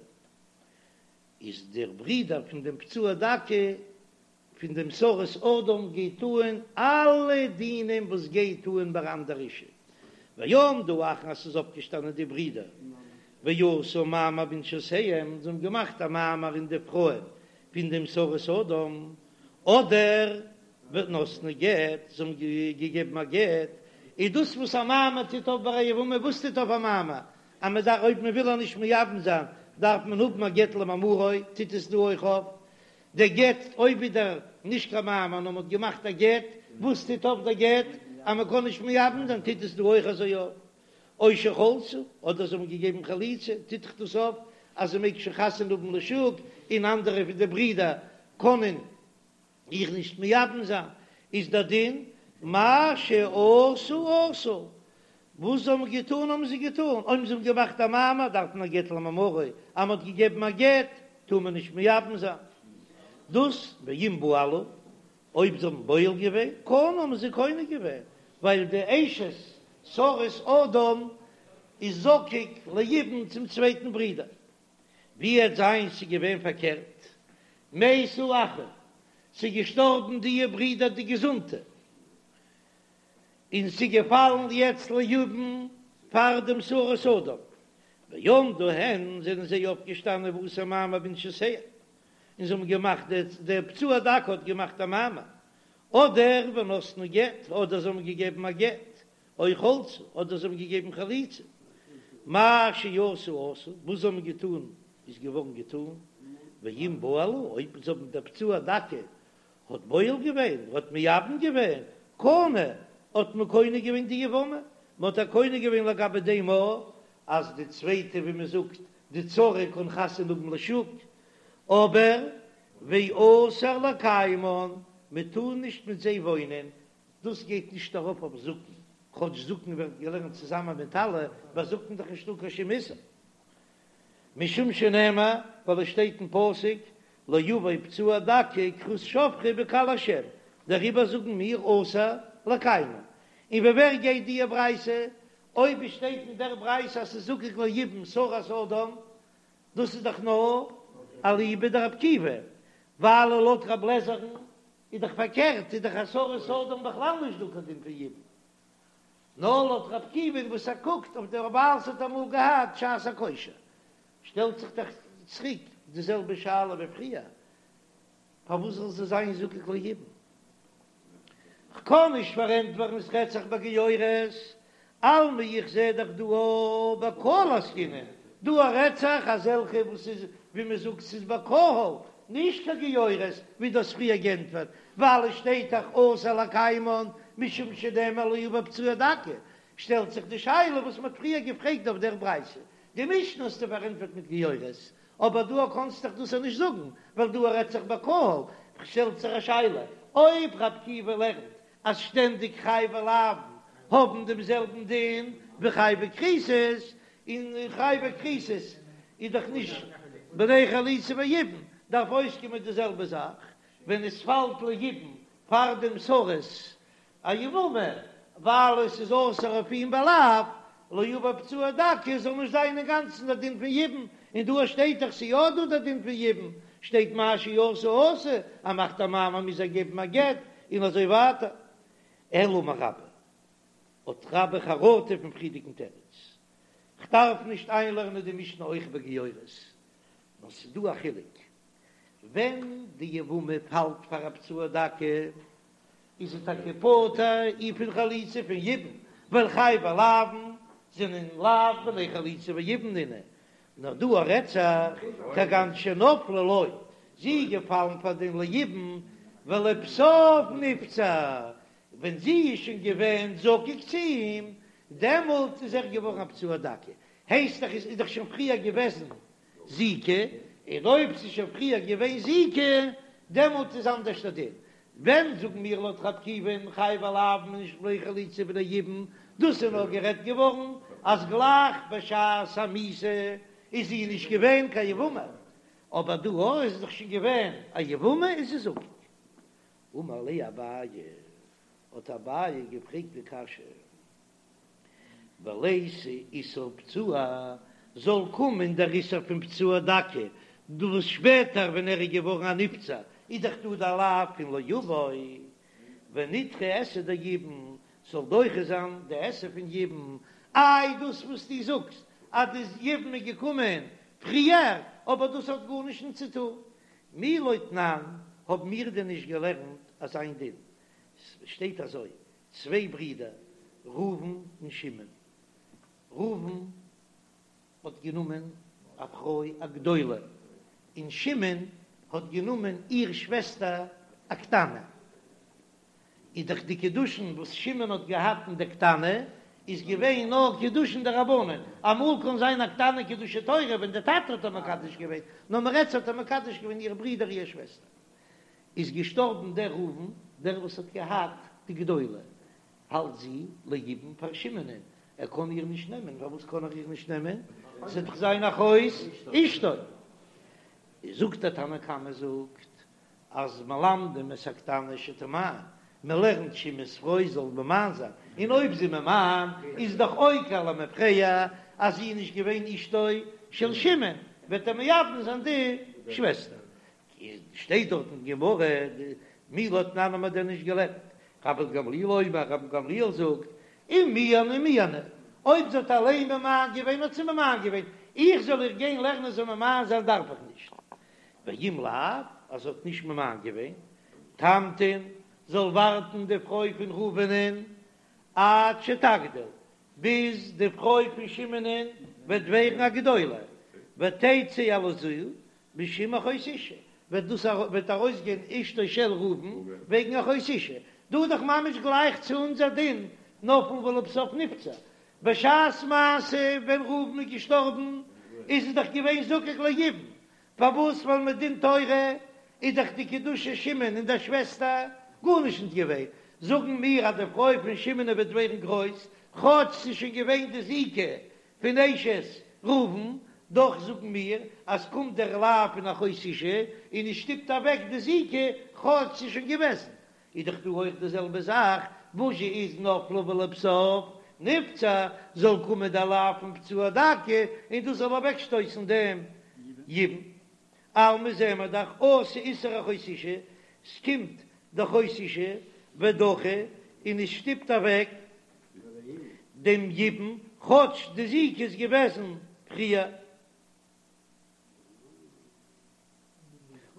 איז דער ברידער פון דעם פצוע דכא פון דעם סריס אדם גייט אהן אלע דינים וואס גייט אהן ביי אנדער אישה, ועמדו האחין אז ס'איז אויפגעשטאנען די ברידער ועשו מאמר בנשותיהם, זיי האבן געמאכט א מאמר אין די פרויען פון דעם סריס אדם, אדער ונתנו גט, זיי האבן געגעבן א גט, איז דאס וואס א מאמר טוט אויף ביי א יבמה, וואס טוט אויף א מאמר? אז מען דארף אויב מען וויל איר נישט מייבם זיין דארף מען האבן א גט למאמרו, טוט עס דא אויך אויף דער גט, אויב איז דער נישט קיין מאמר נאר מען האט געמאכט א גט, וואס טוט אויף דער גט אז מען קען נישט מייבם זיין, טוט עס דא אויך אזוי אויף, או שחלצו, אדער זיי האבן געגעבן חליצה, טוט דאך דאס אויף אז זי מעג שוין חתונה האבן לשוק, און אנדערע פון די ברידער קענען איר נישט מייבם זיין, איז דער דין מה שעשו עשו, וואס זיי האבן געטאן האבן זיי געטאן, אויב זיי האבן געמאכט א מאמר דארף מען א גט למאמרו, אז מען האט געגעבן א גט טאר מען נישט מייבם זיין, דאס ואם בעלו, אויב זיי האבן בועל געווען, קנו האבן זיי קונה געווען, ווייל די אשת סריס אדם איז זקוק ליבום צום צווייטן ברודער. ווי עט זיין ס'איז געווען פארקערט, מתו אחים, ס'איז געשטארבן דיע ברידער די געזונטע, און ס'איז געפאלן יעצט ליבום פאר דעם סריס אדם, ועמדו הן, זענען זיי אויפגעשטאנען ועשו מאמר בנשותיהם, און זיי האבן געמאכט, דער פצוע דכא האט געמאכט א מאמר, אדער ונתנו גט, אדער זיי האבן געגעבן א גט, או חלצו, אדער זיי האבן געגעבן חליצה, מה שעשו עשו, וואס זיי האבן געטאן איז געווארן געטאן, ואם בעלו, אויב זיי האבן דער פצוע דכא האט בועל געווען, האט מייבם געווען, קנה, האט מען קונה געווען די יבמה, מען האט איר קונה געווען לגבי דעם א אז די צווייטע ווי מען זאגט די צרה קען חתונה האבן לשוק, אבער ואסור לקיימן, מען טאר נישט מיט זיי וואוינען, דאס גייט נישט ארויף אויף זקן, כאטש זקן ווערט געלערנט צוזאמען מיט אלע, ביי זקן איז דאך נישטא קיין שום איסור, משום שנאמר, ווייל עס שטייט אין פסוק, לא יבא פצוע דכא וכרות שפכה בקהל השם, דעריבער זאגן מיר אסור לקיימן. און ווי ווער גייט דיע ברייתא? אויב עס שטייט אין דער ברייתא אז ס'איז זקוק ליבום סריס אדם, דאס איז דאך נאר אליבא דרבי עקיבא, ווייל לויט רב לעזער'ן איז דאך פארקערט, איז דאך א סריס אדם בכלל נישט דא קיין דין פון יבום. נאר לויט רבי עקיבא וואס ער קוקט אויף דער ווייל ס'האט אמאל געהאט שעת הכושר, שטעלט זיך דאך צוריק די זעלבע שאלה ווי פריער, פארוואס זאל זי זיין זקוק ליבום? כ'קען נישט פארענטפערן עס רעדט זיך ביי גיורת, אלמא איך זע דאך דא א בקהל עסקינן, דא א רעדט זיך אזעלכע וואס איז ווי מען זאגט ס'איז בקהל, נישט קיין גיורת ווי דו האסט פריער גענטפערט, ווייל עס שטייט דאך אסור לקיימן משום שנאמר לא יבא פצוע דכא, שטעלט זיך די שאלה וואס מען האט פריער געפרעגט אויף דער ברייתא, די משנה האסטו פארענטפערט מיט גיורת, אבער דא קאנסט דאך דאס נישט זאגן, ווייל דא רעדט זיך בקהל, שטעלט זיך א שאלה, אויב רבי עקיבא לערנט אז שטענדיג חייבי לאוין האבן דעם זעלבן דין ווי חייבי כריתות, און חייבי כריתות איז דאך נישט בני חליצה ויבום, דארף אויסקומען די זעלבע זאך ווען עס פאלט ליבום פאר דעם סריס א יבמה, ווייל עס איז אסור אויף אים בלאו. לא יבא פצוע דכא זאל נישט זיין אינגאנצן דער דין פון יבום, און דא שטייט דאך ס'איז יא דא דער דין פון יבום, שטייט מה שעשה עשוי, ער מאכט א מאמר מוז ער געבן א גט, און אזוי ווייטער. אלא אמר רבה, האט רבה חרטה פון פריערדיגן תירוץ, כ'דארף נישט איינלערנען די משנה אויך בגיורת, נאר ס'איז דא א חילוק, ווען די יבמה פאלט פאר א פצוע דכא, איז זי טאקע פטור אי פון חליצה פון יבום, ווייל חייבי לאוין זענען לאו בני חליצה ויבום נינהו, נאר דא רעדט זיך כגון שנפלה לו, זי איז געפאלן פאר דעם ליבום ולבסוף נפצע, ווען זי איז שוין געווען זקוק צו אים, דעמאלט איז ער געווארן א פצוע דכא, הייסט דאך איז דאך שוין פריער געוועזן זיקה, און אויב ס'איז שוין פריער געווען זיקה, דעמאלט איז אנדערש דער דין. ווען זאגן מיר לויט רבי עקיבא'ן חייבי לאוין נישט בני חליצה בני יבום, דאס איז נאר גערעדט געווארן אז גלייך בשעת המיתה איז זי נישט געווען קיין יבמה, אבער דא אויב איז דאך שוין געווען א יבמה איז זי זקוק. אמר ליה אביי, האט אביי געפרעגט די קשיא. וליתי איסור פצוע, זאל קומען דער איסור פון פצוע דכא, דא וואס שפעטער ווען ער איז געווארן א נפצע איז דאך דא דער לאו פון לא יבוא, ונידחה עשה דיבום, זאל דוחה זיין די עשה פון יבום, איי דאס וואס דו זאגסט אז די יבום איז געקומען פריער, אבער דאס האט גארנישט נישט צו טון, מי לא תנן, האבן מיר דען נישט געלערנט אזא איין דין, ס'שטייט אזוי, צוויי ברידער ראובן און שמעון, ראובן האט גענומען א פרוי א גדולה, און שמעון האט גענומען איר שוועסטער א קטנה, איז דאך די קידושין וואס שמעון האט געהאט אין די קטנה איז געווען נאר קידושין דרבנן, אמאל קען זיין א קטנה קידושי תורה ווען די טאטע האט איר מקדש געווען, נאר מ'רעדט ס'האט איר מקדש געווען איר ברודער איר שוועסטער. איז געשטארבן דער ראובן, דער וואס האט געהאט די גדולה, האלט זי ליבום פאר שמעונ'ען, ער קען איר נישט נעמען, פארוואס קען ער איר נישט נעמען? ס'וועט דאך זיין אחות אשתו. זאגט דער תנא קמא זאגט אז מלמדים את הקטנה שתמאן, מען לערנט שמעון'ס פרוי זאל ממאן זיין, און אויב זי ממאן איז דאך עוקר למפרע אז זי איז נישט געווען אשתו של שמעון, וועט ער מייבם זיין די שוועסטער. שטייט דארט אין גמרא, מי לא תנן האט מען דען נישט געלערנט? רבן גמליאל אומר, רבן גמליאל זאגט, אם מיאנה מיאנה, אויב זי האט אליין ממאן געווען האט זי ממאן געווען, איך זאל איר גיין לערנען זאל ממאן זיין דארף איך נישט. ואם לאו, אז זי האט נישט ממאן געווען, תמתין, זאל ווארטן די פרוי פון ראובנ'ען עד שתגדיל, ביז די פרוי פון שמעונ'ען וועט ווערן א גדולה, ותצא הלזו, משום אחות אשה, וועט דאס וועט ארויסגיין אשתו של ראובן וועגן אחות אשה, דא איז דאך ממש גלייך צו אונזער דין נפלה ולבסוף נפצע, בשעת מעשה ווען ראובן איז געשטארבן איז עס דאך געווען זקוק ליבום, פארוואס ווייל מדין תורה איז דאך די קידושי שמעון און דער שוועסטער גארנישט נישט געווען, זאגן מיר אז די פרוי פון שמעון וועט ווערן גרויס כאטש ס'איז שוין געווען די זיקה פון אשת ראובן, דאך זאגן מיר אז קומט דער לאו פון אחות אשה און עס שטופט אוועק די זיקה כאטש ס'איז שוין געוועזן, איז דאך דא אויך די זעלבע זאך, וואס זשע איז נפלה ולבסוף נפצע, זאל קומען דער לאו פון פצוע דכא און דאס זאל אוועקשטויסן דעם יבום. אלמא זעען מיר דאך אתי איסור אחות אשה, ס'קומט די אחות אשה ודחי און עס שטופט אוועק דעם יבום, כאטש די זיקה איז געוועזן פריער.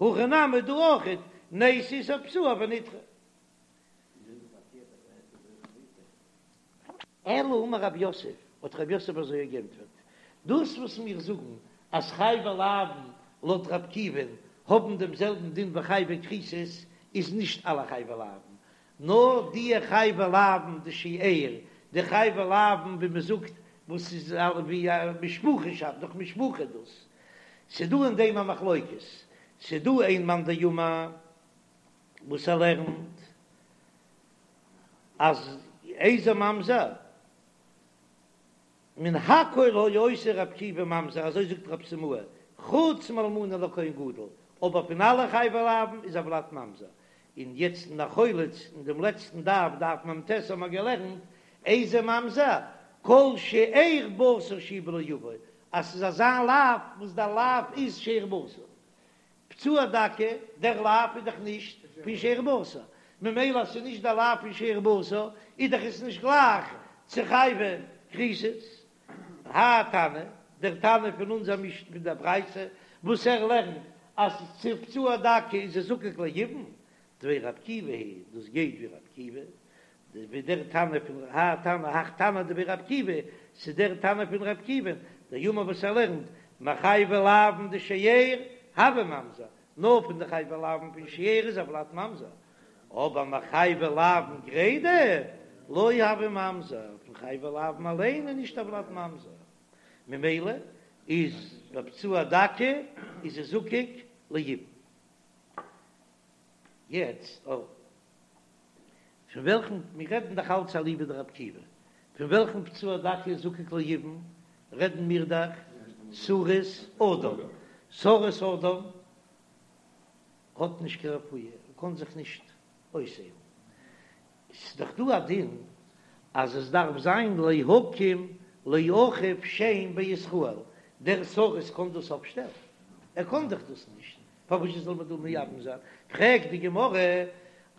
הכא נמי דא אויכעט, ניתי איסור פצוע ונדחה. אלא אמר רב יוסף, האט רב יוסף אזוי געענטפערט, דאס וואס מיר זאגן אז חייבי לאוין לויט רבי עקיבא'ן האבן דעם זעלבן דין ווי חייבי כריתות, איז נישט אלע חייבי לאוין, נאר די חייבי לאוין דשאר, די חייבי לאוין ווי מען זאגט וואס איז ווי א משפחה שאפט דורך משפחה דאס, ס'דא אין דעם א מחלוקת, ס'דא איין מאן דאמר וואס ער לערנט אז איזה ממזר מן הכל היה עושה רבי עקיבא ממזר אזוי זאגט רב סימאי חוץ מאלמנה לכהן גדול, אבער פון אלע חייבי לאוין איז הולד ממזר, און יעצט אין החולץ אין דעם לעצטן דף דף מ"ט האבן מיר געלערנט איזה ממזר? כל שאר בשר שהוא בלא יבוא, אז ס'איז אזא לאו וואס דער לאו איז שאר בשר. פצוע דכא, דער לאו איז דאך נישט פון שאר בשר, ממילא אז ס'איז נישט דער לאו פון שאר בשר, איז דאך עס נישט גלייך צו חייבי כריתות. האי תנא, דער תנא פון אונזער משנה פון דער ברייתא, וואס ער לערנט אז צו פצוע דכא איז ער זקוק ליבום, דבי רבי עקיבא היא, דאס גייט ווי רבי עקיבא, ווי דער תנא פון האי תנא הך תנא דבי רבי עקיבא, ס'איז דער תנא פון רבי עקיבא, דאמר וואס ער לערנט, מחייבי לאוין דשאר הוי ממזר, נאר פון די חייבי לאוין פון שאר איז הולד ממזר, אבער מחייבי לאוין גרידא לא הוי ממזר, פון חייבי לאוין אליין איז נישט הולד ממזר, ממילא איז בפצוע דכא איז ער זקוק ליבום. יעצט אויף פון וועלכן, מיר רעדן דאך אלץ אליבא דרבי עקיבא, פון וועלכן פצוע דכא איז זקוק ליבום רעדן מיר דאך סריס אדם, סריס אדם האט נישט קיין רפואה, ער קען זיך נישט אויסהיילן, ס'איז דאך דא א דין אז עס דארף זיין להקים לאחיו שם בישראל, דער סריס קען דאס אפשטעלן? ער קען דאך דאס נישט, פארוואס זאל מען דא מייבם זיין? פרעגט די גמרא,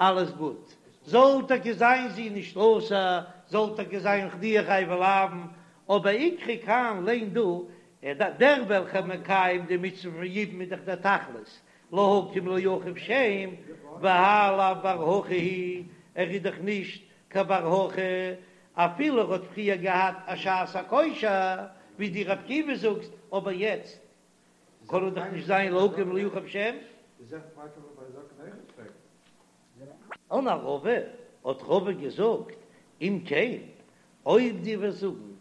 אלעס גוט, זאל טאקע זיין זי נישט אסור, זאל טאקע זיין די חייבי לאוין, אבער איקרי כאן ליין דא, דער וועלכער מקיים די מצוה פון יבום איז דאך דער תכלית, להקים לאחיו שם, והאי לאו בר הכי הוא, ער איז דאך נישט קיין בר הכי, אפילו ער האט פריער געהאט א שעת הכושר, ווי דו רבי עקיבא זאגסט, אבער יעצט קען ער דאך נישט זיין להקים לאחיו שם. אמר רבא, האט רבא געזאגט, אם כן, אויב דו וועסט זאגן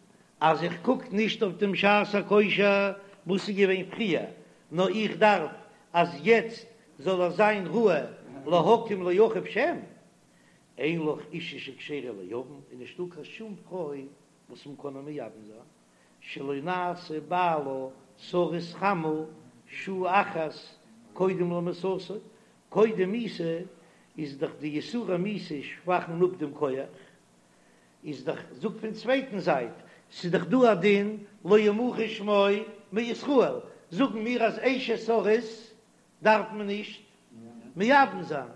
אז איך קוק נישט אויף דעם שעת הכושר וואס איז געווען פריער, נאר איך דארף אז יעצט זאל ער זיין ראוי להקים לאחיו שם, אין לך אישה שכשרה ליבם, איז נישטא קיין שום פרוי וואס מען קען איר מייבם זיין, שלא נעשה בעלה סריס חמה שעה אחת קודם למיתתו, קודם מיתה איז דאך די יסורי מיתה שוואכן אפ דעם כח, איז דאך זאג פון צווייטן זייט, ס'איז דאך דא א דין לא ימחה שמו מישראל, זאגן מיר אז אשת סריס דארף מען נישט מייבם זיין,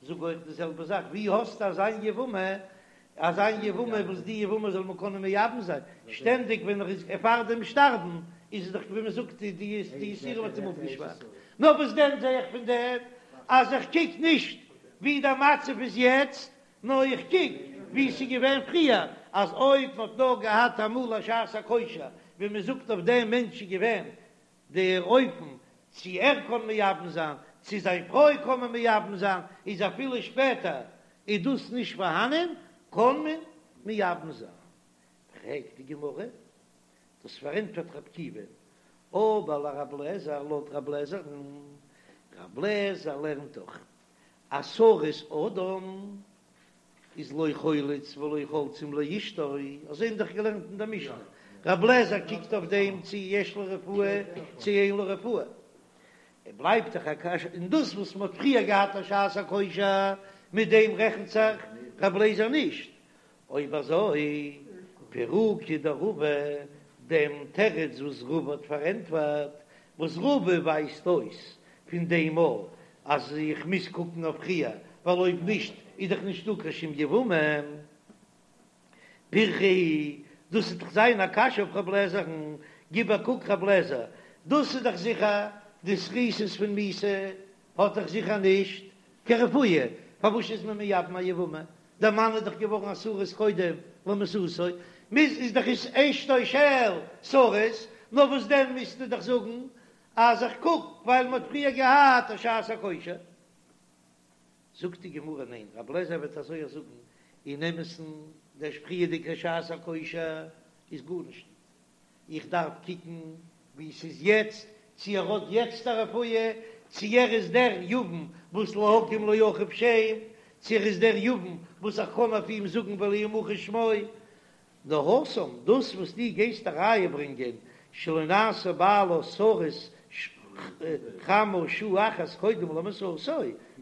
זאג אויך די זעלבע זאך, ווי האסטו אזא יבמה, אזא יבמה וואס די יבמה זאל מען קענען מייבם זיין, שטענדיג ווען ער איז פאר דעם שטארבן איז עס דאך ווי מען זאגט די יסורים האט אים אפגעשוואכט, נאר וואס דען זע איך פון דעם אז איך קוק נישט ווי דער מצב איז יעצט, נאר איך קוק ווי ס'איז געווען פריער, אז אויב מ'האט נאר געהאט אמאל א שעת הכושר, ווי מ'זאגט אויף דעם מענטש איז געווען דער אופן צו ער קען מייבם זיין, צו זיין פרוי קען מען מייבם זיין, איז אפילו שפעטער איז דאס נישט פארהאנען, קען מען מייבם זיין. פרעגט די גמרא, דאס פארענטפערט רבי עקיבא, אבער לרבי אליעזר, לויט רבי אליעזר'ן, רבי אליעזר לערנט דאך אז סריס אדם איז לא חולץ ולא חולצין לאשתו, אזוי האבן דאך געלערנט אין דער משנה, רבי אליעזר קוקט אויף דעם צו יש לו רפואה צו אין לו רפואה, ער בלייבט דאך א קשיא, און דאס וואס מען האט פריער געהאט א שעת הכושר, מיט דעם רעכנט זיך רבי אליעזר נישט, אויב אזוי, פירוקא דרבא, דעם תירוץ וואס רבא האט פארענטפערט, וואס רבא ווייזט אויס פון דעם מאל אז איך מוז קוקן אויף פריער, ווייל אויב נישט איז דאך נישטא קיין שום יבמה. פירכא היא, דאס וועט דאך זיין א קשיא אויף רב לעזער'ן, גיב א קוק רב לעזער, דאס איז דאך זיכער די סריסות פון מיתה האט דאך זיכער נישט קיין רפואה, פארוואס איז מען מייבם א יבמה? דער מאן איז דאך געווארן א סריס קודם למיתתו, מוז איז דאך איז אשתו של סריס, נאר וואס דען מוזטו דאך זאגן אז איך קוק ווייל מען האט פריער געהאט א שעת הכושר. זאגט די גמרא ניין, רבי אליעזר וועט אזוי אויך זאגן, אין אמת'ן דער פריערדיגע שעת הכושר איז גארנישט ניט, איך דארף קוקן ווי ס'איז יעצט, צו ער האט יעצט א רפואה, צו ער איז דער יבם וואס להקים לאחיו שם, צו ער איז דער יבם וואס איך קען אויף אים זאגן ולא ימחה שמו. נאר התם, דאס וואס דו גייסט א ראיה ברענגען שלא נעשה בעלה סריס חמה שעה אחת קודם למיתתו,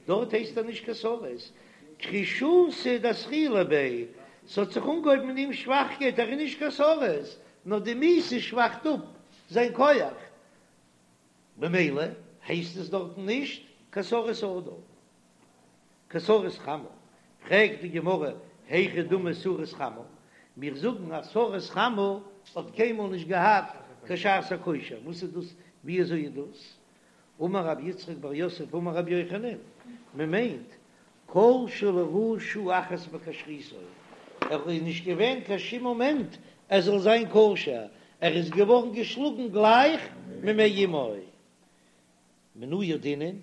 דארט הייסט ער נישט קיין סריס, כרישותא דאתחילה ביה. ס'האט זיך אנגעהויבן אין אים שוואכקייט, ער איז נישט קיין סריס, נאר די מיתה שוואכט אפ זיין כח, במילא הייסט עס דארטן נישט קיין סריס אדם, קיין סריס חמה. פרעגט די גמרא, היכי דמי סריס חמה, מיר זאגן אז סריס חמה האט קיינמאל נישט געהאט קיין שעת הכושר, וואס איז דאס, ווי אזוי איז דאס? אמר רב יצחק בר יוסף אמר רבי יוחנן, מען מיינט כל שלא ראה שעה אחת בכשרותו, ער איז נישט געווען קיין שום מאמענט ער זאל זיין כשר, ער איז געווארן געשלאגן גלייך ממעי אמו. מנא ידעינן,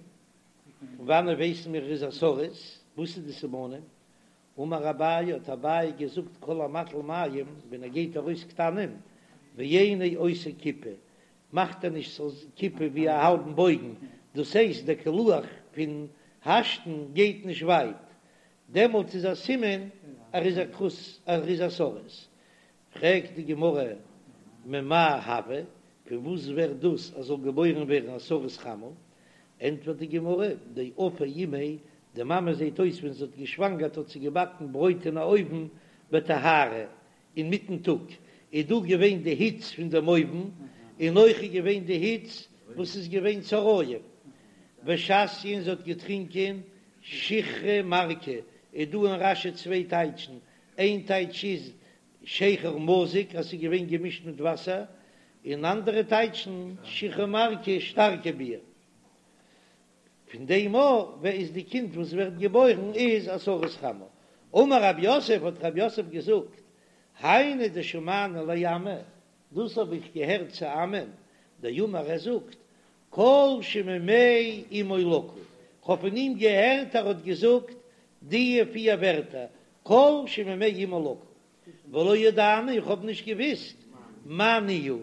פון וואנען ווייסן מיר ער איז א סריס, וואס איז די סימנים? אמר אביי, האט אביי געזאגט כל המטיל מים, ווען ער געבט ארויס קטנים, ואינו עושה כיפה, מאכט ער נישט ס'זאל כיפה ווי א האלבן בויגן, דאס הייסט דער קילוח פון השתן גייט נישט ווייט, דעמאלטס איז א סימן ער איז א כרות ער איז א סריס. פרעגט די גמרא ממאי הוי, פון וואס ווערט דאס אז זאל געבוירן ווערן א סריס חמה? ענטפערט די גמרא, דאפיא אימיה, די מאמע זעט אויס ווען זי האט געשוואנגערט האט זי געבאקן ברויט אין א אויוון בטיהרא, אינמיטן טאג איז דא געווען די היץ פון דעם אויוון, און אויך איז געווען די היץ וואס איז געווען צהרים ושתיא און זי האט געטרינקען שיכרא מרקא, איז דא אין רש"י צוויי טייטשן, איין טייטש איז שכר מזוג אז ס'איז געווען געמישט מיט וואסער, און אנדערע טייטשן שיכרא מרקא שטארקע ביר. פון דעם אָ איז די קינד וואס ווערט געבוירן איז א סריס חמה. אמר רב יוסף האט רב יוסף געזאגט, היינו דשמענא לאמי, דאס האב איך געהערט צו אמי'ן, דאמר ער זאגט, כל שממעי אמו לקוי, כ'האב פון אים געהערט ער האט געזאגט די פיר ווערטער, כל שממעי אמו לקוי, ולא ידענא איך האב נישט געוויסט מאי ניהו,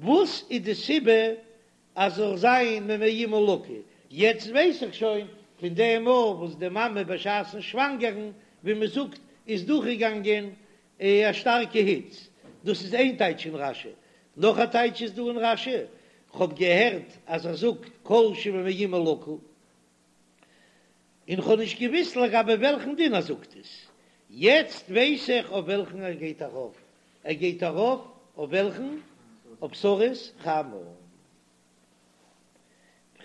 וואס איז די סיבה אז זאל זיין ממעי אמו לקוי, יעצט ווייס איך שוין פון דעם מאל וואס די מאמע בשעת'ן שוואנגערן ווי מען זאגט איז דורכגעגאנגען א שטארקע היץ, דאס איז איין טייטש אין רש"י, נאך א טייטש איז דא אין רש"י, כ'האב געהערט אז ער זאגט כל שממעי אמו לקוי, און כ'האב נישט געוויסט לגבי וועלכן דין ער זאגט עס, יעצט ווייס איך אויף וועלכן ער גייט ארויף, ער גייט ארויף אויף וועלכן? אויף סריס חמה.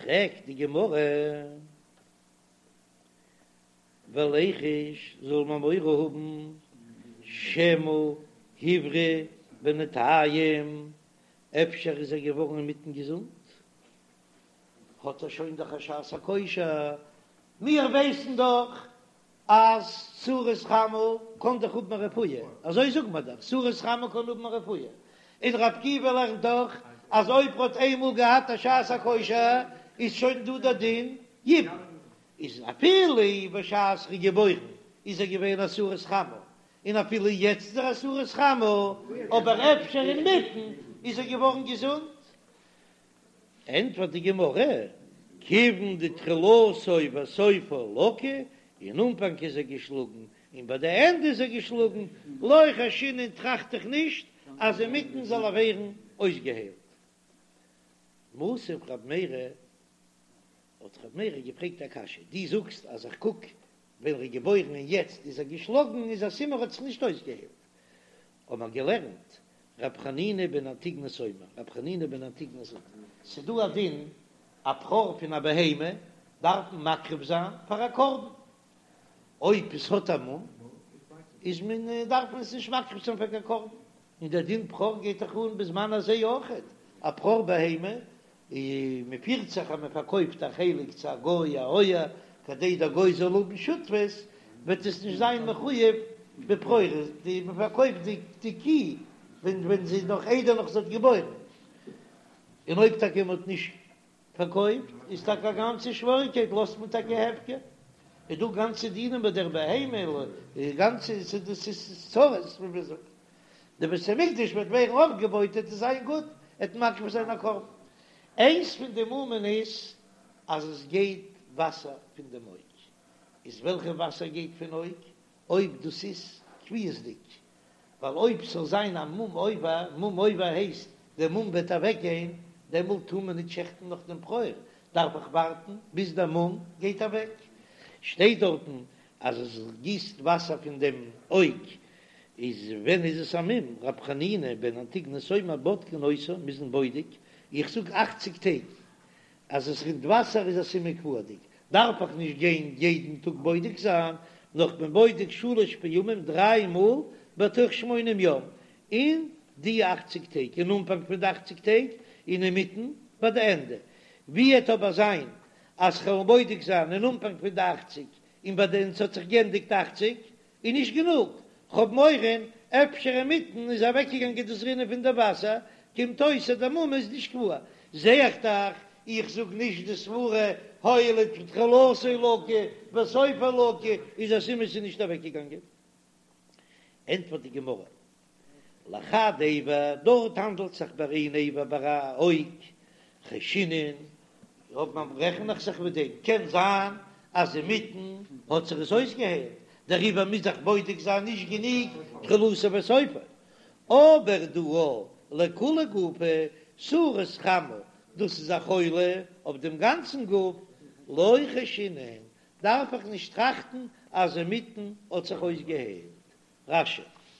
פרעגט די גמרא, וליחוש זאל מען מורא האבן שמא הבריא בינתיים, אפשר איז ער געווארן אינמיטן געזונט? האט ער שוין דאך א שעת הכושר, מיר ווייסן דאך אז סריס חמה קען דאך האבן א רפואה, אזוי זאגט מען דאך, סריס חמה קען האבן א רפואה, און ר' עקיבא לערנט דאך אז אויב ר'האט איינמאל געהאט א שעת הכושר איז שוין דא דער דין יבום, איז אפילו בשעת ר'איז געבוירן איז ער געווען א סריס חמה, און אפילו יעצט איז ער א סריס חמה, אבער אפשר אינמיטן איז ער געווארן געזונט. ענטפערט די גמרא, כיוון דתחילתו וסופו לקוי, אין אנפאנג איז ער געשלאגן און ביי די ענדע איז ער געשלאגן, לא חיישינן טראכט איך נישט אז אינמיטן זאל ער ווערן אויסגעהיילט. מתיב רב מרי, האט רב מרי געפרעגט א קשיא, דו זאגסט אז איך קוק ווען ער איז געבוירן און יעצט איז ער געשלאגן איז א סימן ער האט זיך נישט אויסגעהיילט, האט מען געלערנט רב חנינא בן אנטיגנוס אומר, רב חנינא בן אנטיגנוס זאגט, ס'דא א דין, א בכור פון א בהמה דארף מען מקריב זיין פאר א קרבן, אויב עס האט א מום איז מען דארף מען עס נישט מקריב זיין פאר קיין קרבן, און דער דין בכור גייט דאך אן בזמן הזה אויכעט, א בכור בהמה און מען פירט זיך אז מען פארקויפט א חלק צו א גוי א אויער כדי דער גוי זאל האבן שותפות, וועט עס נישט זיין מחויב בבכורות, די מען פארקויפט די די קי ווען ווען זי איז נאך איידער נאך זי האט געבוירן, און אויב טאקע מען האט נישט פארקויפט איז טאקע א גאנצע שוועריקייט לאזט מען טאקע הפקר, איז דא גאנצע דינים ביי דער בהמה, גאנצע דאס איז צרות ווי מען זאגט. די בית המקדש וועט ווערן אויפגעבויט וועט עס זיין גוט, וועט מקריב זיין א קרבן. איינס פון די מומין איז אז עס גייט וואסער פון דעם אויג. איז וועלכע וואסער גייט פון אויג? אויב דאס איז קביעות'דיג, ווייל אויב ס'זאל זיין א מום עובר, מום עובר הייסט דער מום וועט אוועקגיין, דעמאלט טאר מען נישט שעכטן נאך דעם בכור, דארף איך ווארטן ביז דער מום גייט אוועק. שטייט דארטן. אז עס גיסט וואסער פון דעם אויג, איז ווען איז עס א מום? רב חנינא בן אנטיגנוס אומר בודקין אותו, מ'איז אים בודק, איך זאג אכציג טעג אז עס רינט וואסער איז א סימן קבוע'דיג, דארף איך נישט גיין יעדן טאג בודק זיין, נאר כ'בין בודק שלש פעמים דריי מאל בתוך שמונים יום, אין די אכציג טעג, אין אנפאנג פון די אכציג טעג, און אינמיטן ביי די ענדע. ווי עט אבער זיין אז כ'וועל בודק זיין אין אנפאנג פון די אכציג און ביי די און ס'האט זיך גענדיגט אכציג, איז נישט גענוג, כ'האב מורא אפשר אינמיטן איז אוועקגעגאנגען דאס רינען פון די וואסער, קומט אויס אז די מום איז נישט קבוע. זע איך דאך, איך זאג נישט די סברה הואיל ותחילתו לקוי וסופו לקוי איז א סימן ס'איז נישט אוועקגעגאנגען. ענטפערט די גמרא, לחד אבר, דארט האנדלט זיך ביי איין אבר ביי א אויג, חיישינן, אויב מען רעכן איך זיך מיט דעם, קען זיין אז אינמיטן האט זיך עס אויסגעהיילט, דעריבער מוז איך בודק זיין נישט גענוג תחילתו וסופו, אבער דא לכוליה גופא, סריס חמה, דאס איז א חולי אויף דעם גאנצן גוף, לא חיישינן, דארף איך נישט טראכטן אז אינמיטן האט זיך אויסגעהיילט. רש"י.